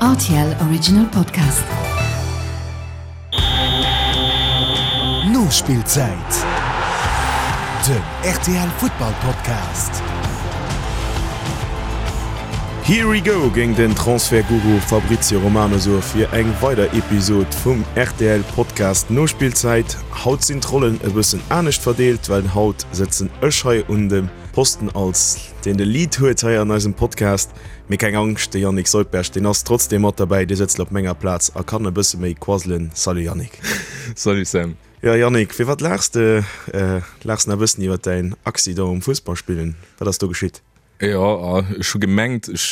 Rtl Original Podcast. Nospillzäit, den rtl Futtball Podcast. Here we go géing den Transfertguru Fabrizio Romano soe fir eng weider Episod vum rtl Podcast Nospillzäit. Haut sinn d'Rollen e bëssen anescht verdeelt, well haut sëtzen ech hei un dem Posten als deen de Lead huet hei an eisem Podcast. Mee keng Angscht, de Yannick Soldberg, deen ass trotzdem mat derbäi, dee sëtzt op menger Plaz a kann e bësse méi quasselen. Salut Yannick. Salut Sam. Jo Yannick, firwat laachs de? Laachs nach e bëssen iwwer däin Accident um Fussballspillen? Wat ass do geschitt? Jo, ech hu gemengt, ech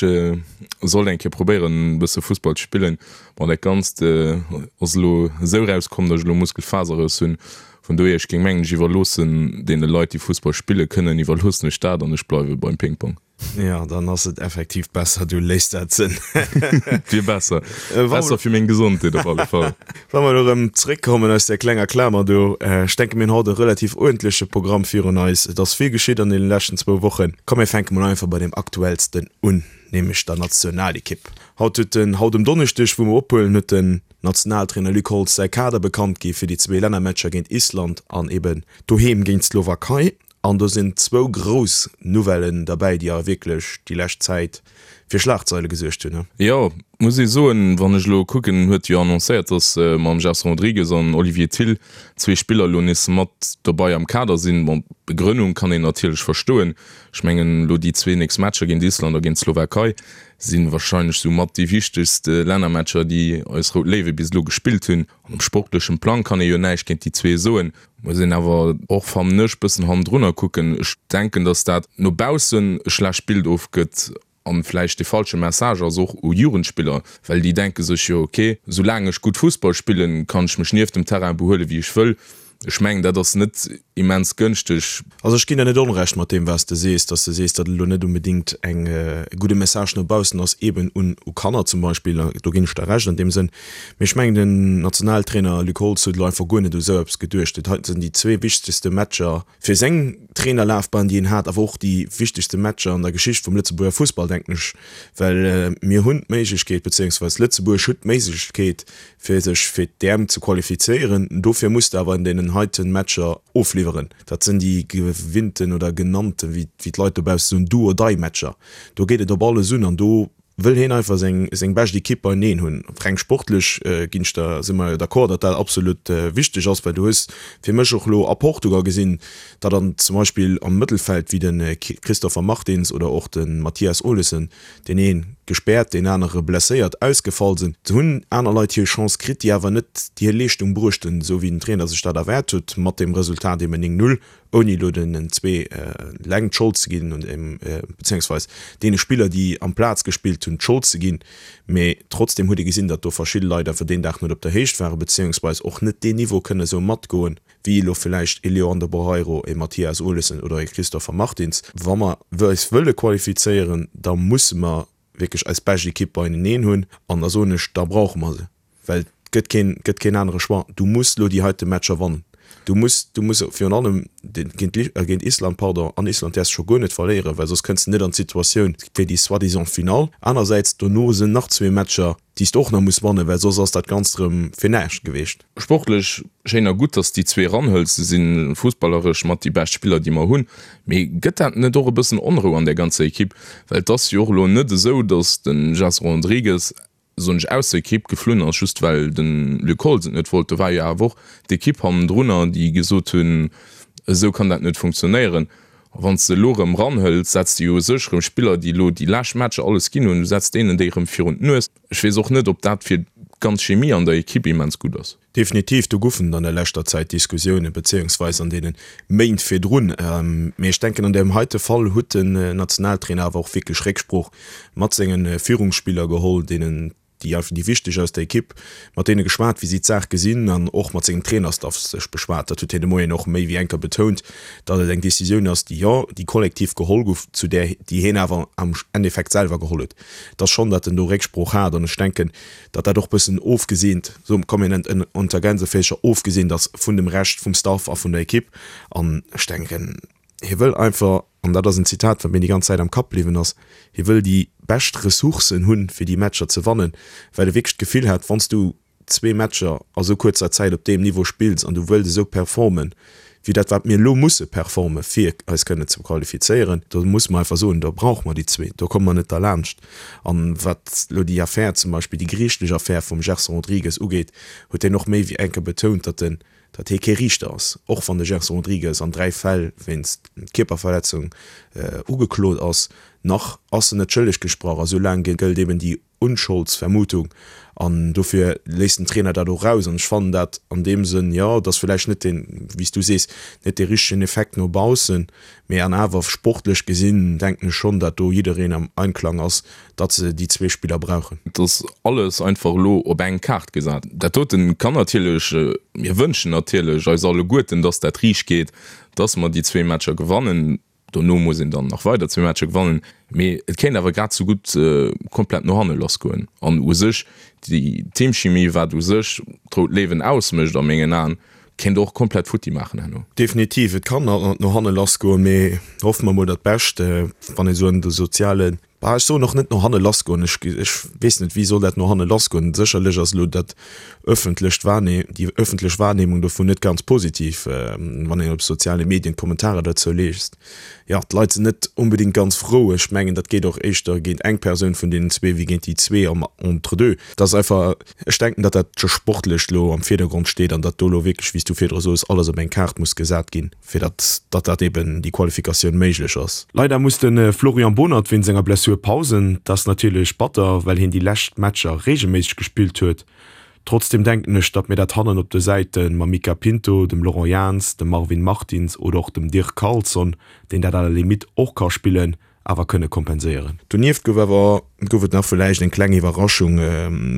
sollt eng Kéier probéieren e bësse Fussball ze spillen. Bon, dat Ganzt ass elo esou erauskomm, datt ech elo Muskelfaserrëss hunn. Vun dohier, ech géing mengen, ech iwwerloossen deene Leit, déi Fussball spille kënnen, iwwerloossen ech dat an ech bleiwe beim Ping-Pong. Jo, dann ass et effektiv besser, du léiss dat sënn. Wier besser. Besser fir meng Gesondheet op alle Fall. Wa mer elo erëm zréckkommen aus där klenger Klamer do, ech denke mir hunn haut e relativ uerdentleche Programm virun eis. Et ass vill geschitt an deene leschten zwou Wochen. Komm mir fänke mol einfach bei deem aktuellsten un, nämlech der Nationalekipp. Haut huet den, haut um Donneschdeg, wou mer ophuelen, huet den Nationaltrainer Luc Holtz säi Kader bekannt gi fir déi zwee Lännermatcher géint Island an eben doheem géint d'Slowakei. An do sinn zwou grouss Nouvellen derbäi, déi awer wierklech déi lescht Zäit fir Schlagzeile gesuergt hunn. Jo, muss ee soen, wann ech elo kucken, huet jo annoncéiert, datt mam Gerson Rodrigues an Olivier Thill zwee Spiller elo nees mat dobei am Kader sinn. Bon, d'Begrënnung kann een natierlech verstoen. Ech mengen, elo déi zwee nächst Matcher géint Island a géint d'Slowakei si warscheinlech sou mat déi wichtegst Lännermatcher, déi eis Rout Léiwe bis elo gespillt hunn. An um sportlechen Plang kann ee jo näischt géint déi zwee soen. Muss een awer och, fannen ech, bëssen hannendrunner kucken. Ech denken, datt dat no baussen e schlecht Bild ofgëtt an vläicht de falsche Message ass, och u Jugendspiller, well déi denke sech jo, ok, soulaang ech gutt Fussball spillen, kann ech mech nieft dem Terrain behuelen, wéi ech wëll. Ech mengen, dat ass net immens gënschteg. Also ech ginn der net Onrecht mat deem wat s de sees, datt s de sees, datt et elo net onbedéngt eng e gudde Message no baussen ass, eeben un u Kanner zum Beispill. Do ginn ech der Recht an deem Sënn. Mee ech mengen den Nationaltrainer Luc Holtz huet elo einfach guer net u sou eppes geduecht. Dat heiten sinn déi zwee wichtegste Matcher fir seng Trainerlafbahn déi en hat, awer och déi wichtegste Matcher an der Geschicht vum Lëtzebuerger Fussball, denken ech, well mir hunn d'Méiglechkeet, bezéiungsweis Lëtzebuerg huet d'Méiglechkeet, fir sech fir d'EM ze qualifizéieren. Dofir muss de awer an deenen heiten Matcher ofliwweren. Dat sinn déi gewinnten oder genannten, wéi d'Leit dobausse soen, Do-or-die-Matcher. Do geet et op alles un an do wëll hien einfach seng seng bescht Ekipp beieneen hunn. Reng sportlech ginn ech der, si mer jo d'accord, datt dat absolut wichteg ass, well du hues fir mech och elo a Portugal gesinn, datt an zum Beispill am Mëttelfeld wéi de Christopher Martins oder och de Mathias Olesen, deen ee gespäert, deen anere blesséiert, ausgefall sinn. Do hunn aner Leit hir Chance kritt, déi awer net déi hir Leeschtung bruecht hunn, esou wéi den Trainer sech dat erwaart huet, mat deem Resultat eben 9, 0, ouni elo den zwee eleng d'Schold ze ginn, bezéiungsweis deene Spiller, déi amplaz gespillt hunn, d'Schold ze ginn. Mee trotzdeem huet ee gesinn, datt do verschidde Leit einfach deen Dag net op der Héicht waren, bezéiungsweis och net deen Niveau kënne esou matgoen, wéi elo villäicht ee Leandro Barreiro, ee Mathias Olesen oder ee Christopher Martins. Wa mer eis wëlle qualifizéieren, da musse mer wierklech eis bescht Ekipp beieneen hunn. An da soen ech, da brauche mer se, well et gëtt keen, gëtt keen anere Choix. Du muss elo déi heite Matcher wannen. Du muss, du muss virun allem géint, géint Island, pardon, an Island däerfs de scho guer net verléieren, well soss kënns de net an d'Situatioun fir déi soi-disant Finall. Anersäits, dono sinn nach zwee Matcher, déi s de och nach muss wannen, well soss ass dat Ganzt erëm fir näischt geweecht. Sportlech schéin a gutt, dass déi zwee eranhëls. Se si fussballeresch mat déi bescht Spiller, déi mer hunn. Mee gëtt dat net och e bëssen Onrou an där ganzer Ekipp? Well et ass jo och elo net esou, dass de Gerson Rodrigues, soen ech, aus der Ekipp geflunn ass, just well de Luc Holtz et net wollt. Do war jo awer och d'Ekipp hannendrunner, déi gesot hunn, esou kann dat net funktionéieren. A wann s de elo erëm eranhëls, setz de jo u sech erëm Spiller, déi elo déi lescht Matcher alles ginn hunn, du setz deenen déi erëm virun d'Nues. Ech weess och net, ob dat fir d'ganz Chemie an der Ekipp immens gutt ass. Definitiv, do goufen et an der leschter Zäit Diskussiounen, bezéiungsweis an deene Méint virdrun. Mee ech denken, an deem heite Fall huet den Nationaltrainer awer och wierklech Récksprooch mat senge Führungsspiller geholl, deenen déi einfach déi wichteg aus der Ekipp, mat deene geschwat, wéi si d'Saach gesinn an och mat sengem Trainerstaff sech beschwat. Dat huet hien de Moien och méi wéi eng Kéier betount, datt et eng Decisioun ass, déi, jo, déi kollektiv geholl gouf, zu där, déi hien awer am Endeffekt selwer geholl huet. Et ass schonn, datt en do Récksprooch hat an ech denken, datt dat och bëssen ofgeseent, so komm mir nennen et unter Gänseféischer, ofgeseent ass vun dem Rescht vum Staff a vun der Ekipp. An ech denken, hie wëll einfach, an dat ass en Zitat, wat mir déi ganz Zäit am Kapp bliwwen ass, hie wëll déi. bescht Ressourcen hunn, fir déi Matcher ze wannen, well e wierklech d'Gefill hat, wann s du zwee Matcher a sou kuerzer Zäit op deem Niveau spills an du wëlls esou performen, wéi dat wat mir elo musse performen, fir eis kënnen ze qualifizéieren, do musse mer einfach soen, do brauche mer déi zwee, do komme mer net derlaanscht. An wat elo déi Affär zum Beispill, déi geriichtlech Affär vum Gerson Rodrigues ugeet, huet hien och méi wéi eng Kéier betount, datt en, datt hie kee Riichter ass, och wann de Gerson Rodrigues an 3 Fäll wéinst Kierperverletzung ugeklot ass, nach ass en net schëlleg gesprach a soulaang gëllt eben déi Unscholdsvermutung an dofir léisst den Trainer dat och raus an ech fannen dat an deem Sënn, jo, et ass villäicht net deen, wéi s du sees, net dee richtegen Effekt no baussen, mee an awer sportlech gesinn denken ech schonn, dat do jiddereen am Einklang ass, datt se déi zwee Spiller brauchen. Et ass alles einfach elo op eng Kaart gesat. Dat doten kann natierlech, mir wënschen natierlech eis alleguerten, datt dat riicht geet, datt mer déi zwee Matcher gewannen. Dono muss een dann nach weider zwee Matcher gewannen, mee et kéint awer grad sou gutt komplett no hanne lassgoen. An u sech déi Teamchimie, wat u sech d'Rout Léiwen ausmécht a mengen Aen, kéint och komplett futti maachen herno. Definitiv, et kann no hanne lassgoen, mee hoffe mer mol dat Bescht. Wann ee sou an de soziale Bah, ech soen och net no hanne lassgoen. Ech, ech weess net, wéi soll dat no hanne lassgoen? Sécherlech ass elo dat öffentlecht Wahrne-, déi öffentlech Wahrnehmung dovun net ganz positiv, wann een op soziale Medien d'Kommentarer dozou liest. Jo, d'Leit sinn net onbedéngt ganz frou. Ech mengen, dat geet och éischter géint eng Persoun vun deenen zwee wéi géint déi zwee am Entre-deux. Dat ass einfach, ech denken, datt dat Sportlecht elo am Virdergrond steet an datt do elo wierklech, wéi s du virdru soos, alles op eng Kaart muss gesat ginn. fir datt datt dat eben déi Qualifikatioun méiglech ass. Leider muss de Florian Bohnert wéinst enger Blessur pausen. Dat ass natierlech batter, well hien déi lescht Matcher reegelméisseg gespillt huet. Trotzdeem denken ech, datt mir dat hannen op de Säite mam Mica Pinto, dem Laurent Jans, dem Marvin Martins oder och dem Dirk Carlson, deen dat à la limite och ka spillen, awer kënne kompenséieren. Donieft gouf awer gouf et nach villäicht eng kleng Iwwerraschung,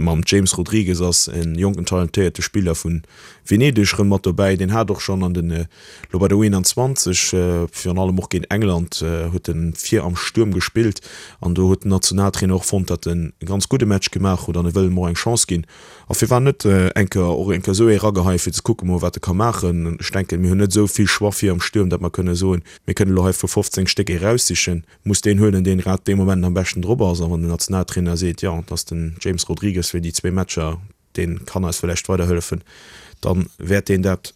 Mam James Rodrigues ass e jonken talentéierte Spiller vu Venedeg rëm mat dobäi. Deen hat och schonn an den elo bei der U21, virun allem och géint England, huet en vir am Stuerm gespillt an do huet den Nationaltrainer och fonnt, datt en e ganz gudde Match gemaach huet an e wëll em och eng Chance ginn. A firwat net eng Kéier och eng Kéier esou ee rageheien, fir ze kucke mol wat e ka maachen. Ech denken, mir hunn net esou vill Choix vir am Stuerm, datt mer kënne soen, Mir kënnen elo hei vu 15 Stéck ee raussichen, muss deen huelen, deen grad dee Moment am beschten drop ass. A wann den Nationaltrainer seet, jo, et ass den James Rodrigues fir déi zwee Matcher, dee kann eis vläicht weiderhëllefen, da wäert deen dat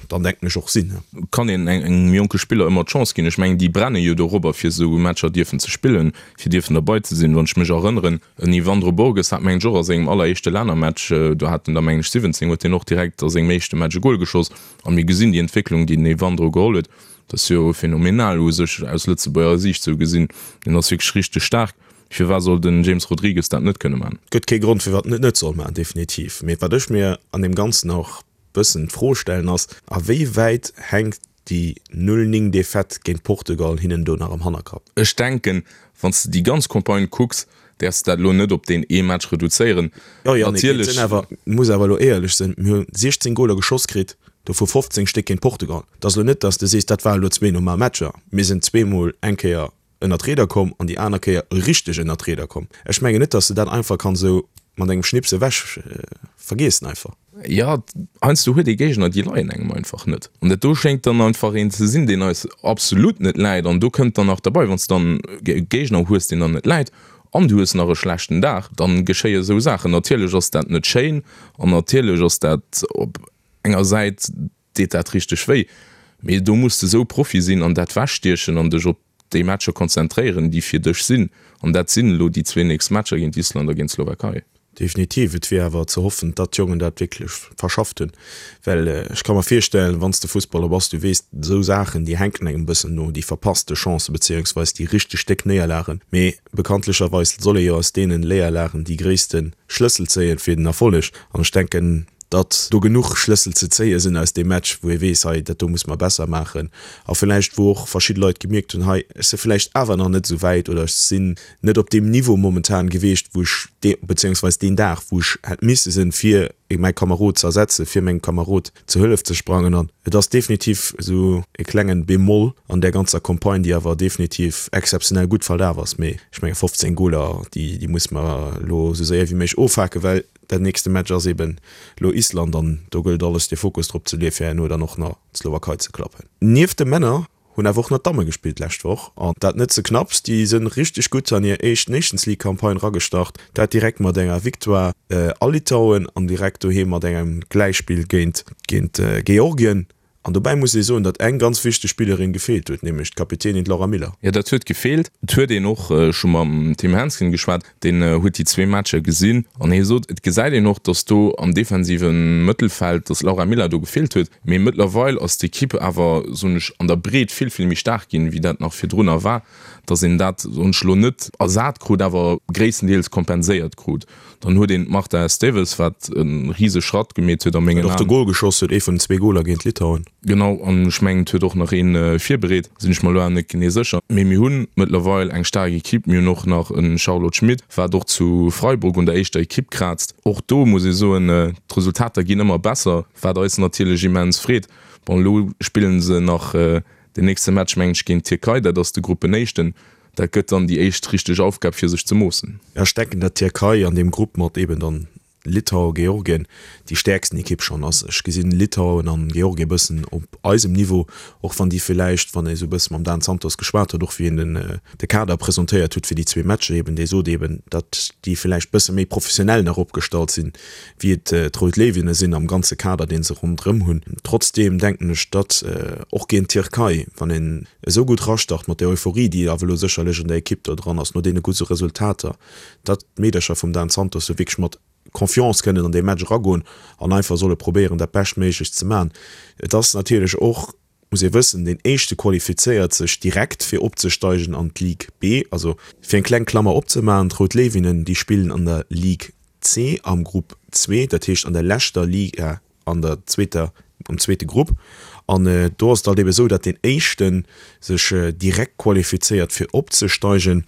dann, denken ech, och sinn. Kann een engem jonke Spiller ëmmer d'Chance ginn. Ech mengen, déi brenne jo dorobber, fir esou Matcher dierfen ze spillen, fir dierfen derbei ze sinn. Wann ech mech erënneren, en Yvandro Borges hat, mengen ech, och a sengem alleréischte Lännermatch, do hat en der, mengen ech, 17, huet hien och direkt a sengem éischte Match e Gol geschoss. A mir gesinn déi Entwécklung, déi den Evandro geholl huet, dat ass jo phänomenal u sech aus Lëtzebuerger Siicht sou gesinn. Deen ass wierklech richteg staark. Firwat soll den James Rodrigues dat net kënne man? Gëtt kee Grond firwat en et net soll man, definitiv. Mee wat ech mir an deem Ganzen och bëssen d'Fro stellen ass, a wéi wäit hänkt déi 0, 9 Defaite géint Portugal hinnen do nach am Hannerkapp? Ech denken, wann s de déi ganz Campagne kucks, däerfs de dat elo net op deen ee Match reduzéieren. Jo, Yannick, mee et sinn awer, muss awer elo éierlech sinn, mir hu 16 Goler geschoss kritt, dovu 15 Stéck géint Portugal. Et ass elo net, datt s de sees, dat waren elo zwee normal Matcher. Mir sinn zweemol eng Kéier ënner d'Rieder komm an déi aner Kéier richteg ënner d'Rieder komm. Ech mengen net, datt s de dat einfach kanns esou mat engem Schnips ewech vergiessen einfach. Jo, heiansdo huet ee Géigner, déi leien engem einfach net. An dat do schéngt dann einfach een ze sinn, deen eis absolut net läit. An do kënnt dann nach derbei, wann s de dann e Géigner hues, deen der net läit, an du hues nach e schlechten Dag, dann geschéie esou Saachen. Natierlech ass dat net schéin an natierlech ass dat op enger Säit, deet dat richteg wéi, mee do muss de esou Profi sinn an dat wechstiechen an dech op déi Matcher konzentréieren, déi fir dech sinn. An dat sinn elo déi zwee nächst Matcher géint Island a géint d'Slowakei. Definitiv, et wier awer ze hoffen, datt d'Jongen dat wierklech verschafft hunn, well ech ka mer virstellen, wann s de Fussballer bass, du weess, esou Saachen, déi hänken engem e bëssen no, déi verpasste Chancen, beziéungsweis déi richteg déck Néierlagen. Mee bekanntlecherweis soll ee jo aus deenen Léierlagen déi gréisste Schlëssel zéien fir den Erfolleg. An ech denken, datt do genuch Schlëssel ze zéie sinn aus deem Match, wou ee weess, hei, dat do muss mer besser maachen. A villäicht, wou och verschidde Leit gemierkt hunn, hei, ech si villäicht awer nach net esou wäit oder ech sinn net op deem Niveau momentan gewiescht, wou ech dee, beziéungsweis deen Dag, wou ech hätt misse sinn, fir mäi Kamerod ze ersetzen, fir mengem Kamerod zur Hëllef ze sprangen. An et ass definitiv esou e klengen Bémol an där ganzer Campagne, déi awer definitiv exzeptionell gutt verlaf ass. Mee ech menge 15 Goler, déi, déi musse mer elo esou séier wéi méiglech ofhaken, well Dat nächste Match ass eben lo Island an do gëllt alles de Fokus drop ze leeë fir herno dann och nach d'Slowakei ze klappen. Nieft de Männer hunn. Hunn awer och nach d'Damme gespillt d'lescht Woch an dat net ze knapps. Déi sënn richteg gutt an hir éischt Nations League Campagne ragestart, dat direkt mat enger Victoire a Litauen an direkt doheem mat engem Gläichspill géint géint Georgien. An dobäi muss ee soen, datt eng ganz wichteg Spillerin gefeelt huet, nämlech d'Kapitänin d'Laura Miller. Jo, dat huet gefeelt. Et huet een och scho mam Tim Hensgen geschwat, deen huet déi zwee Matcher gesinn an hie sot, et gesäit een och, datt do am defensive Mëttelfeld, datt d'Laura Miller do gefeelt huet. Mee mëttlerweil ass d'Ekipp awer, soen ech, an der Breet vill, vill méi staark ginn, wéi dat nach virdrunner war, datt een dat, soen ech elo, net ersat krut, awer gréisstendeels kompenséiert krut. Dann huet een d'Marta Esteves, wat e rise Schratt gemeet huet a mengen Aen. Wat och de Gol geschoss huet, ee vun den zwee Goler géint Litauen. Genau, an ech mengen et huet och nach een virbereet, sinn ech mer elo awer net genee sécher. Mee mir hunn mëttlerweil eng staark Ekipp. Mir hunn och nach e Charlotte Schmit, wat och zu Freiburg un der éischter Ekipp kraazt. Och do muss ee soen, d'Resultater ginn ëmmer besser, wat eis natierlech immens freet. Bon, elo spillen se nach den nächste Match, mengen ech, géint d'Tierkei, dat ass de Gruppenéischten. Dat gëtt dann déi éischt richteg Aufgab fir sech ze moossen. Ech denken dat d'Tierkei an deem Grupp mat eben dann Litauen, Georgien déi stäerksten Ekipp schonn ass. Ech gesinn Litauen an Georgien e bëssen op eisem Niveau, och wann déi villäicht, wann ee sou e bësse mam Dan Santos geschwat huet, och wéi en den de Kader presentéiert huet fir déi zwee Matcher eben, dee sot eben, datt déi villäicht bësse méi professionell nach opgestallt sinn, wéi et d'Rout Léiwinne sinn am ganze Kader dee se ronderëm hunn. Trotzdeem denken ech, datt och géint d'Tierkei, wann een esou gutt rastart, mat där Euphorie, déi awer elo sécherlech an der Ekipp do dran ass, no deene gudde Resultater, datt d'Meedercher vum Dan Santos do wierklech mat Confiance kënnen an dee Match eragoen an einfach solle probéieren, dat Beschtméiglecht ze maachen. Et ass natierlech och, muss ee wëssen, deen Éischte qualifizéiert sech direkt, fir opzesteigen an d'Ligue B. Also, fir eng kleng Klammer opzemaachen, d'Rout Léiwinnen, déi spillen an der Ligue C am Grupp zwee, dat heescht an der leschter Liga an der zweeter, am zweete Grupp. An do ass et halt ebe sou, datt deen éischte sech direkt qualifizéiert fir opzesteigen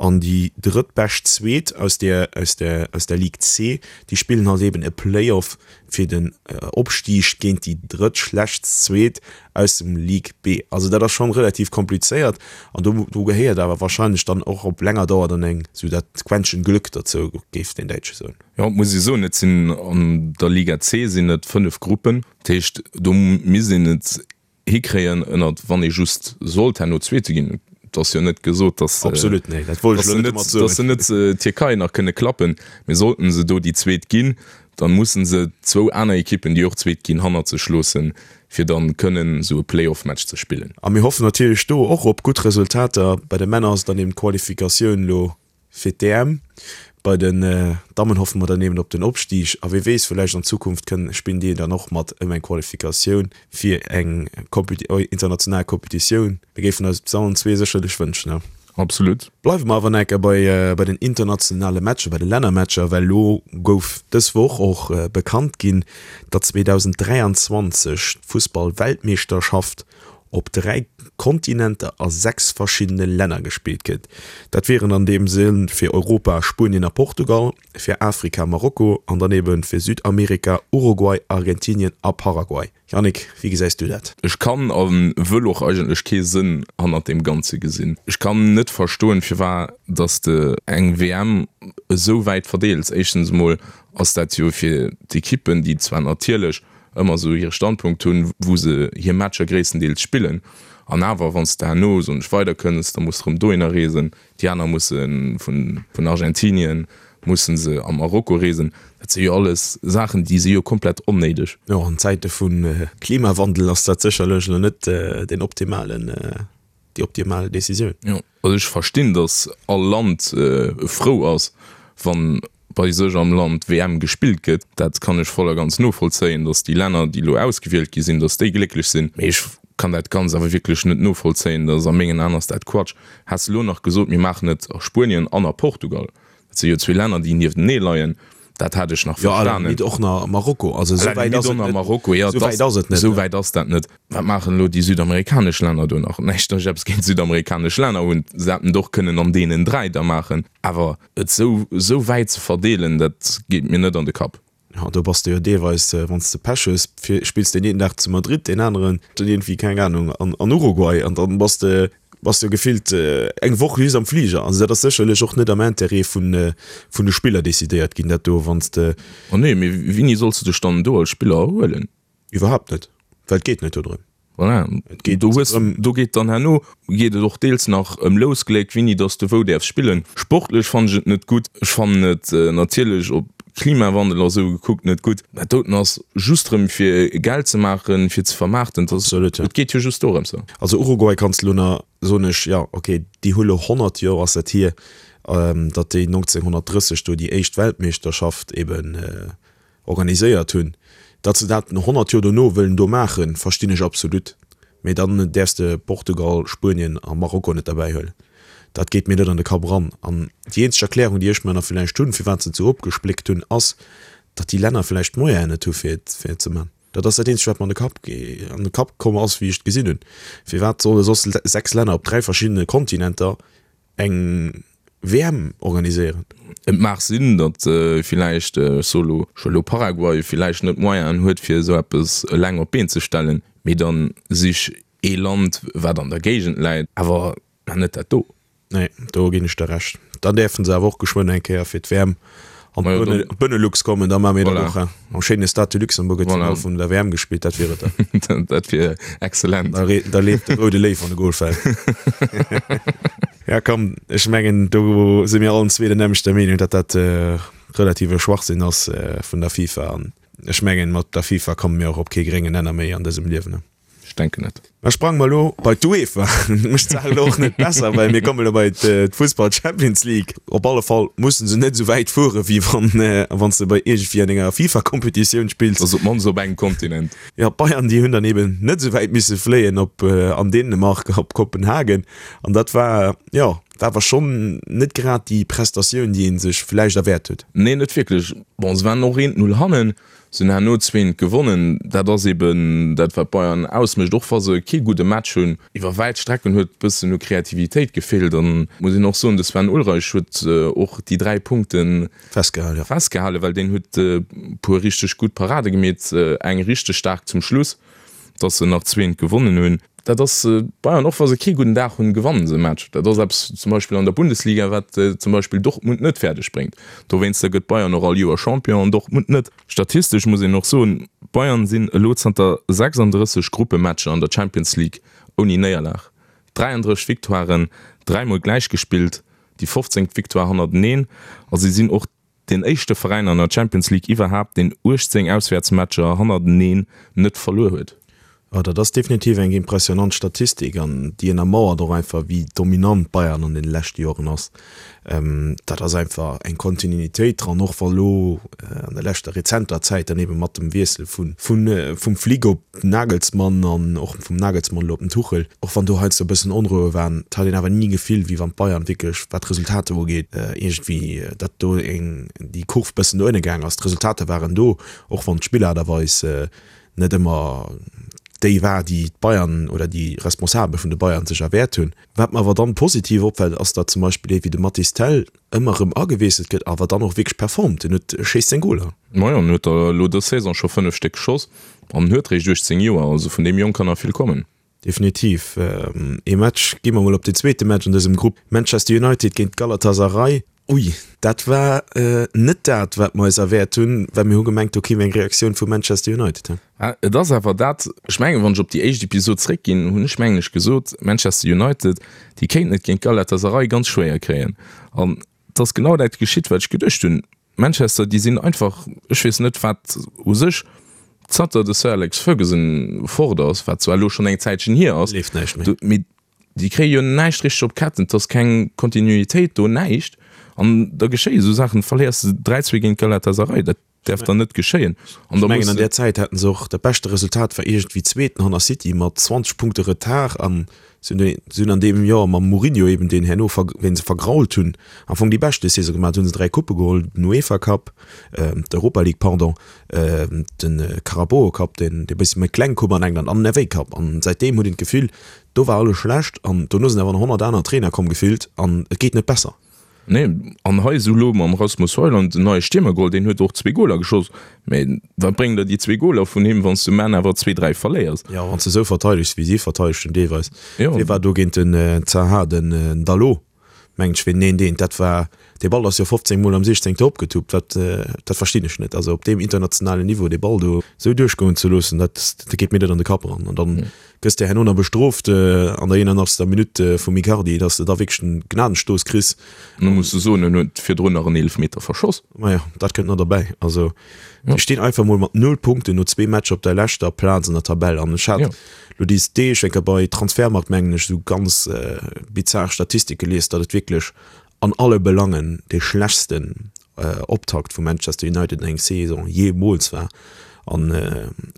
an déi drëttbescht Zweet aus der, aus der, aus der Ligue C, déi spillen halt eben e Play-off fir den Opstig géint déi drëttschlechtst Zweet aus dem Ligue B. Also dat ass schonn relativ komplizéiert an do, do gehéiert awer wahrscheinlech dann och op länger Dauer dann eng, sou dat Quäntchen Glück derzou, géif den Däitsche soen. Jo, et muss ee soen, et sinn an der Liga C sinn et 5 Gruppen. Dat heescht, do misst een et hikréien, ënnert, wann ee just sollt herno Zweete ginn, et ass jo net gesot, datt Absolut, nee, dat wollt ech elo net domat soen. datt se net d'Tierkei nach kënne klappen, mee sollten se do déi Zweet ginn, da mussen se zwou aner Ekippen, déi och Zweet ginn, hannert sech loossen, fir dann kënnen esou e Play-off-Match ze spillen. A mir hoffen natierlech do och op gutt Resultater. Bei de Männer ass et dann eben d'Qualifikatioun elo Fir d'EM. Bei den Dammen hoffe mer dann eben op den Opstig a wee weess, villäicht an Zukunft kënnen spillen déi dann och mat ëm eng Qualifikatioun fir eng international Competitioun. Mir géifen eis et allen zwee sécherlech wënschen, ne? Absolut. Bleiwe mer awer nach eng Kéier bei bei den internationale Matcher, bei de Lännermatcher, well elo gouf dës Woch och bekannt ginn, datt 2023 d'Fussball-Weltmeeschterschaft op 3 Kontinenter a 6 verschiddene Länner gespillt gëtt. Dat wieren an deem Sënn fir Europa Spuenien a Portugal, fir Afrika Marokko an dann ebe fir Südamerika Uruguay, Argentinien a Paraguay. Yannick, wéi gesäis du dat? Ech kann a wëll och eigentlech kee Sënn hannert deem Ganze gesinn. Ech kann net verstoen, firwat dass de eng WM esou wäit verdeels. Éischtens emol ass dat jo fir d'Ekippen, déi zwar natierlech ëmmer esou hire Standpunkt hunn, wou se hir Matcher gréisstendeels spillen. An awer, wann s de herno, soen ech, weiderkënns, da muss de erëm dohinner reesen. Déi aner musse vun Argentinien musse se a Marokko reesen. Dat si jo alles Saachen, déi si jo komplett onnéideg. Jo, an Zäite vu Klimawandel ass dat sécherlech elo net deen optimalen, déi optimal Decisioun. Jo, also ech verstinn, datt all Land frou ass, wann bei sech am Land d'WM gespillt gëtt. Dat kann ech voll a ganz novollzéien, datt déi Länner, déi elo ausgewielt gi sinn, datt déi glécklech sinn. Mee ech kann dat Ganzt awer wierklech net novollzéien. Dat ass a mengen Aen ass dat Quatsch. Häss elo nach gesot, mir maachen et a Spuenien an a Portugal, dat si jo zwee Länner, déi nieftenee leien, dat hätt ech nach Jo, à la verstanen. limite och nach Marokko. Also esou wäit ass et net. Marokko, jo, Esou wäit ass et net. Esou wäit ass dat net. Wat maachen elo déi südamerikanesch Länner do nach? Näischt, datt ech eppes géint südamerikanesch Länner hunn, se hätten et och kënnen an deenen 3 da maachen. Awer et sou sou wäit ze verdeelen, dat geet mir net an de Kapp. Jo, do bass de jo deelweis, wann s de Pech hues, spills deen een Dag zu Madrid, deen aneren dann iergendwéi, keng Anung, an Uruguay an dann bass de bass de jo gefillt eng Woch just am Fliger. Also dat ass sécherlech och net am Intérêt vun vun de Spiller decidéiert ginn, dat do, wann s de. Oh nee, mee wéini solls de dech dann do als Spiller erhuelen? Iwwerhaapt net, well et geet net dodrëm. Voilà. Et geet do hues, do geet dann herno geet et och deels nach ëm Lousgléck, wéini dass du wou däerfs spillen. Sportlech fannen ech et net gutt. Ech fannen et natierlech op Klimawandel a sou gekuckt net gutt. Dat doten ass just rëm fir Geld ze maachen, fir ze vermaarten. Dat ass, Absolut, ja. et geet jo just dorëms. Also Uruguay kanns de lo nach, soen ech, jo ok, déi hu lo 100 Joer ass dat hier, datt déi 1930 do déi éischt Weltmeeschterschaft eben organiséiert hunn. Datt se dat 100 Joer dono wëllen do maachen, verstinn ech absolut. Mee dann däerfs de Portugal, Spuenien a Marokko net derbäi huelen. Dat geet mir net an de Kapp eran. An déi eenzeg Erklärung, déi ech mer nach villäicht hunn, firwat se et esou opgespléckt hunn, ass, datt déi Länner villäicht d'Moyenen net hu fir et fir et ze man. Dat ass dat eenzegt, wat mer an de Kapp an de Kapp komm ass, wéi ech et gesinn hunn. Firwat solle soss 6 Länner op 3 verschiddene Kontinenter eng WM organiséieren. Et mag sinn, datt villäicht, ech soe lo, ech huele lo Paraguay, villäicht net d'Moyenen huet fir esou eppes eleng op d'Been ze stellen, mee dann sich ee Land wat an der Géigend läit, awer mä net dat do. Nee, do ginn ech der Recht. Dann däerfen se awer och geschwënn eng Kéier fir d'WM an d'Benelux kommen, da maache mir dat och. Am schéine Stade de Luxembourg gëtt d'Finall vun der WM gespillt, dat wier et dann. Dat wier excellent. Da leeft de roude Léiw an de Goal fält. Ja komm, ech mengen do si mir allen zwee der nämmlechter Meenung, datt dat relative Schwachsinn ass vun der FIFA. An ech mengen, mat der FIFA komme mir och op kee gréngen Nenner méi an dësem Liewen. Ech denken net. Da sprange mer elo bei d'UEFA. Dat mécht d'Saach elo och net besser, well mir kommen elo bei d'Fussball Champions League. Op alle Fall musse se net esou wäit fuere wéi wann wann s de bei iergendwéi an enger FIFA-Kompetitioun spills. Also op d'mannst op engem Kontinent. Jo, d'Bayern déi hunn dann eben net esou wäit misse fléien op an Dänemark op Kopenhagen. An dat war, jo, war awer schonn net grad déi Prestatioun, déi ee sech vläicht erwäert huet. Nee, net wierklech. Bon, se waren och eent Null hannen. Se hunn herno zwéint gewonnen. Dat ass eben dat, wat Bayern ausmécht, och wa se kee gudde Match hunn. Iwwer wäit Strecken huet e bëssen u Kreativitéit gefeelt. An muss een och soen, de Sven Ulreich huet och déi 3 Punkte festgehalen, well deen huet e puer richteg gutt Parade gemeet, eng richteg staark zum Schluss. dass se nach zweent gewonnen hunn. Dat ass Bayern, och wa se kee gudden Dag hunn, gewannen se e Match. Dat ass eppes zum Beispill an der Bundesliga, wat zum Beispill Dortmund net fäerdeg bréngt. Dowéinster gëtt Bayern och all Joer Champion an Dortmund net. Statistesch muss een och soen, Bayern sinn elo zanter 36 Gruppematcher an der Champions League ouni Néierlag. 33 Victoiren, dräimol gläichgespillt, déi 15. Victoire hannerteneen a si sinn och Deen éischte Veräin an der Champions League iwwerhaapt, deen 18 Auswäertsmatcher hannerteneen net verluer huet. Jo, dat ass definitiv eng impressionant Statistik an déi ënnermauert och einfach, wéi dominant Bayern an deene leschte Joren ass. Dat ass einfach eng Kontinuitéit dran, och wa lo an der leschter rezenter Zäit dann ebe mat dem Wiessel vun vum Flick op Nagelsmann an och vum Nagelsmann elo op den Tuchel, och wann do heiansdo e bëssen Onroue waren, et hat een awer ni Gefill, wéi wann d'Bayern wierklech, wat d'Resultater ugeet, iergendwéi, datt do eng, déi Kurv bëssen no ënne gaang ass. D'Resultater waren do, och wann d'Spillaart a Weis net ëmmer déi war, déi d'Bayern oder déi Responsabel vun de Bayern sech erwäert hunn. Wat mer awer dann positiv opfält, ass, datt zum Beispill ee wéi de Mathys Tel ëmmer erëm agewiesselt gëtt, awer dann och wierklech performt. En huet, schéisst seng Goler. Majo, en huet der elo dës Saison scho 5 Stéck geschoss an en huet réischt 18 Joer, also vun deem Jong kann nach vill kommen. Definitiv. Ee Match, gi mer mol op den zweete Match an dësem Grupp, Manchester United géint Galatasaray. Ui, dat war net dat, wat mer eis erwäert hunn, well mir hu gemengt, do kéim eng Reaktioun vu Manchester United. Et ass awer dat, ech mengen, wann ech op déi éischt Episod zréckginn, hunn ech mengen ech gesot, Manchester United, déi kéinten et géint Galatasaray ganz schwéier kréien. An et ass genau dat geschitt, wat ech geduecht hunn. Manchester, déi sinn einfach, ech weess net wat u sech, zanter de Sir Alex Ferguson fort ass, wat zwar elo schonn eng Zäitchen hier ass, Leeft näischt méi. mee Déi kréie jo näischt richteg op d'Ketten, et ass keng Kontinuitéit do, näischt. An da geschéie sou Saachen, verléiers de 3, 2 géint Galatasaray, dat däerf dann net geschéien. An da muss. Ech mengen an där Zäit haten se och, dat beschte Resultat war iergendwéi Zweeten hanner City mat 20 Punkte Retard an si hunn si hunn an deem Joer mam Mourinho eben, deen herno ver ween se vergrault hunn, am Fong déi beschte Saison gemaach. Do hunn se 3 Couppe geholl, den UEFA Cup, d'Europa League, pardon, de Carabao Cup, deen dee bëssi méi kleng Coupe an England an den FA Cup. An säitdeem huet een d'Gefill, Do war alles schlecht an dono sinn awer nach 100 aner Trainer komm gefillt an et geet net besser. Nee, an hei esou elo mam Rasmus Højlund en neie Stiermer geholl, deen huet och zwee Goler geschoss, mä wat bréngen der déi zwee Goler vun him, wann s du um Enn awer zwee, dräi verléiers? Jo, wann s de esou verteidegs wéi si verteidegt hunn deelweis. Wee war do géint den Zaha? Den Dalot mengen ech, ween neen deen, dat war. Dee Ball ass jo 15 Mol am 16. Opgetuppt. Dat, dat verstinn ech net. Also op deem internationalen Niveau dee Ball do esou duerchgoen ze loossen, dat, dat geet mir net an de Kapp eran. An dann gëss de herno nach bestrooft an der 81. Minutt vum Icardi, dass de da wierklech den Gnadenstooss kriss. An da muss de soen, en huet virdrun nach en Eelefmeter verschoss. Majo, dat kënnt nach derbäi. Also déi stinn einfach mol mat null Punkten no zwee Matcher op der leschter Plaz an der Tabell. An ech hat lo déi Deeg eng Kéier bei Transfermarkt, mengen ech, esou ganz bizar Statistike gelies, datt et wierklech an alle Belangen dee schlechtsten Optakt vu Manchester United an eng Saison jeemools war. An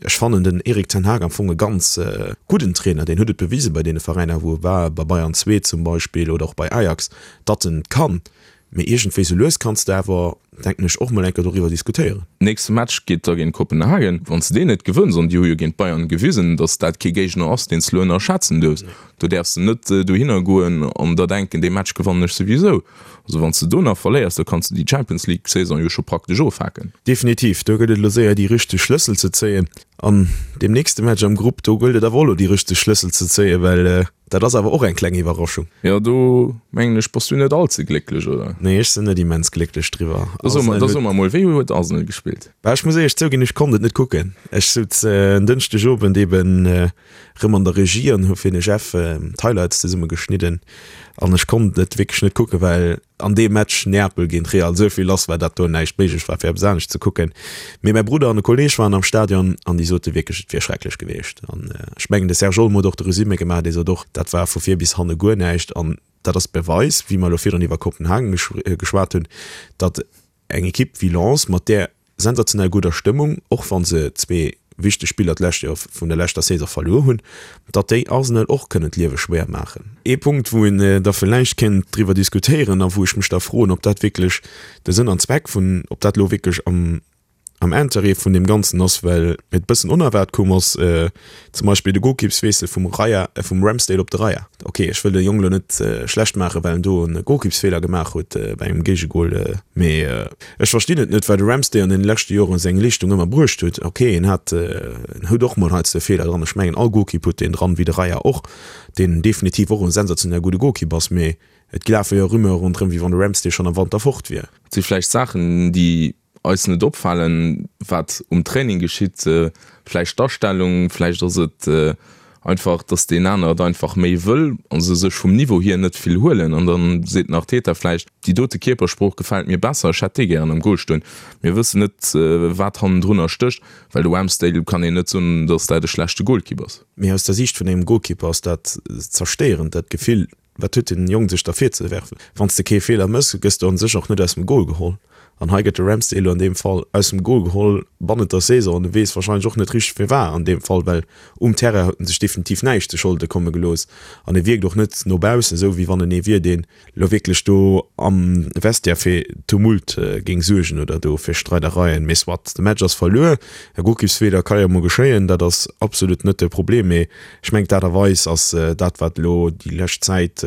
ech fannen den Erik ten Hag am Fong e ganz gudden Trainer. Deen huet et bewise bei deene Veräiner wou e war, bei Bayern 2 zum Beispill oder och bei Ajax, datt en et kann. Mee iergendwéi sou lues kanns de awer, denken ech, och mol eng Kéier doriwwer diskutéieren. Nächste Match geet da géint Kopenhagen. Wann s de deen net gewënns, an déi hu jo géint d'Bayern gewisen, datt dat kee Géigner ass, deen s de elo ënnerschätzen duerfs, do däerfs de net dohinner goen an der denken, dee Match gewannen ech souwisou. Also wann s de do nach verléiers, da kanns de déi Champions League Saison jo scho praktesch ofhaken. Definitiv, do gëllt et elo séier déi richteg Schlëssel ze zéien. An deem nächste Match am Grupp, do gëllt et awer och elo déi richteg Schlëssel ze zéien, well Dat ass awer och eng kleng Iwwerraschung. Jo, do mengen ech bass du net all ze glécklech, oder? Nee, ech sinn net immens glécklech driwwer. Da so mer, da so mer mol, wéi huet Arsenal gespillt? Bah, ech muss éierlech zouginn, ech konnt et net kucken. Ech souz en Dënschdegowend eben rëm an der Regie an hu fir de Jeff d'Highlights zesumme geschnidden an ech konnt et wierklech net kucken, well an deem Match Neapel géint Real esou vill lass war, dat do näischt méiglech war fir eppes anescht ze kucken. Mee mäi Brudder an e Kolleeg waren am Stadion an déi sote wierklech, et wier schrecklech gewiescht. An ech mengen de Serge Olmo huet och de Resumé gemaach, dee sot och, dat war vu vir bis hanne guer näischt. An dat ass Beweis, wéi mer elo virdrun iwwer Kopenhagen geschwat hunn, datt eng Ekipp wéi Lens mat där sensationell gudder Stëmmung, och wa se zwee wichteg Spiller d'lescht Joer vun der leschter Saison verluer hunn, datt déi Arsenal och kënnen d'Liewe schwéier maachen. Ee Punkt, wou een da villäicht kéint driwwer diskutéieren a wou ech mech da froen, ob dat wierklech de Sënn an Zweck vun, ob dat elo wierklech am am Interêt vun deem Ganzen ass, well et bëssen onerwaart koum ass, zum Beispill de Golkippswiessel vum Raya, vum Ramsdale op de Raya. Ok, ech wëll de Jong elo net schlecht maachen, well en do e Golkippsfeeler gemaach huet bei engem Géigegol, mee Ech verstinn et net, well de Ramsdale an den leschte Joren seng Leeschtung ëmmer bruecht huet. Ok, en hat, en huet och mol heiansdo Feeler dran. Ech mengen all Golkipp huet deen dran, wéi de Raya och, deen definitiv och en sensationell gudde Golkipp ass. Mee et lafe jo Rumeure ronderëm, wéi wann de Ramsdale schonn am Wanter fort wier. Et si vläicht Saachen, déi eis net opfalen, wat um Training geschitt, vläicht d'Astellung, vläicht ass et Einfach, dass deen aner et einfach méi wëll a se sech vum Niveau hier net vill huelen. An dann seet den Arteta vläicht, déi dote Kierpersprooch gefält mir besser, ech hätt dee gären am Goal stoen. Mir wëssen net, wat hannendrunner stécht, well de Ramsdale kann een net soen, dass dat e schlechte Goalkeeper ass. Mee aus der Siicht vun engem Goalkeeper ass dat zerstéierend, dat Gefill, Wat huet den Jong sech da virzewerfen? Wann s de kee Feeler mëss, gëss de an sech och net aus dem Goal geholl. An hei gëtt de Ramsdale elo an deem Fall aus dem Goal geholl bannent der Saison an e weess warscheinlech och net richteg firwat an deem Fall, well um Terrain huet en sech definitiv näischt zu Scholde komme gelooss an e wierkt och net no baussen esou wéi wann en ee wier, deen elo wierklech do am Vestiaire fir Tumult géing suergen oder do fir Streidereien. Mee soit, de Match ass verluer, e Golkippsfeeler ka jo mol geschéien, dat ass absolut net de Problem, mee Ech mengen, d'Aart a Weis ass dat, wat elo déi lescht Zäit,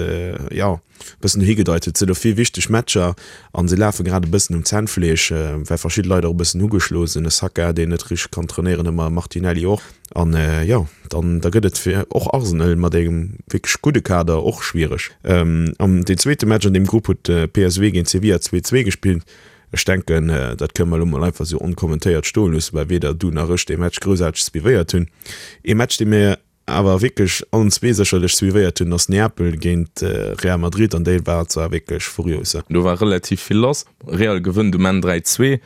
jo, e bëssen dohi gedeit huet. Et sinn elo vill wichteg Matcher a se lafe grad e bëssen um Zännfleesch, well verschidde Leit och e bëssen ugeschloe sinn. E Saka, deen net richteg kann trainéieren ëmmer, e Martinelli och. An, jo, dann da gëtt et fir och Arsenal mat engem wierklech gudde Kader och schwiereg. An deen zweete Match an deem Grupp huet PSV géint Sevilla 2, 2 gespillt. Ech denken, dat kënne mer elo mol einfach esou onkommentéiert stoe loossen, well weder du nach ech dee Match groussaarteg suivéiert hunn. Ee Match, dee mir awer wierklech allen zwee sécherlech suivéiert hunn, ass Neapel géint Real Madrid an déi war zwar wierklech furios. Do war relativ vill lass. Real gewënnt um Enn 3, 2.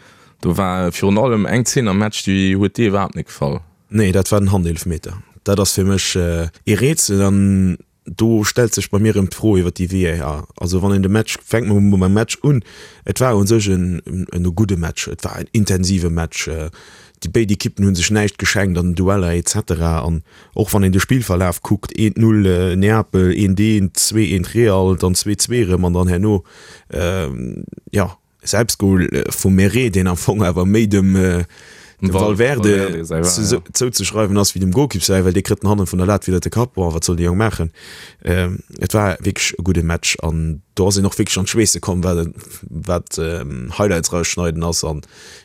Do war virun allem eng Zeen am Match, déi huet dir iwwerhaapt net gefall. Nee, dat war den Handeelfmeter. Dat ass fir mech ee Rätsel an Do stellt sech bei mir erëm d'Fro iwwer déi VAR. Also wann een de Match, fänke mer mol mam Match un, et war u sech en e gudde Match, et war en intensive Match, déi béid Ekippen hu sech näischt geschenkt an den Dueller et cetera. An och wann een de Spillverlaf kuckt, eent Null Neapel, eent eent, zwee eent Real, dann zwee zwee erëm an dann herno, jo, Selbstgol vum Meret, deen am Fong awer méi dem. Dem Valverde zouzeschreiwen ass wéi dem Golkipp säi, well dee kritt en hannen vun der Lat widder de Kapp. Bon, wat soll de Jong maachen? Et war wierklech e gudde Match an do ass een och wierklech an d'Schweesse komm, wat wat Highlights rausschneiden ass an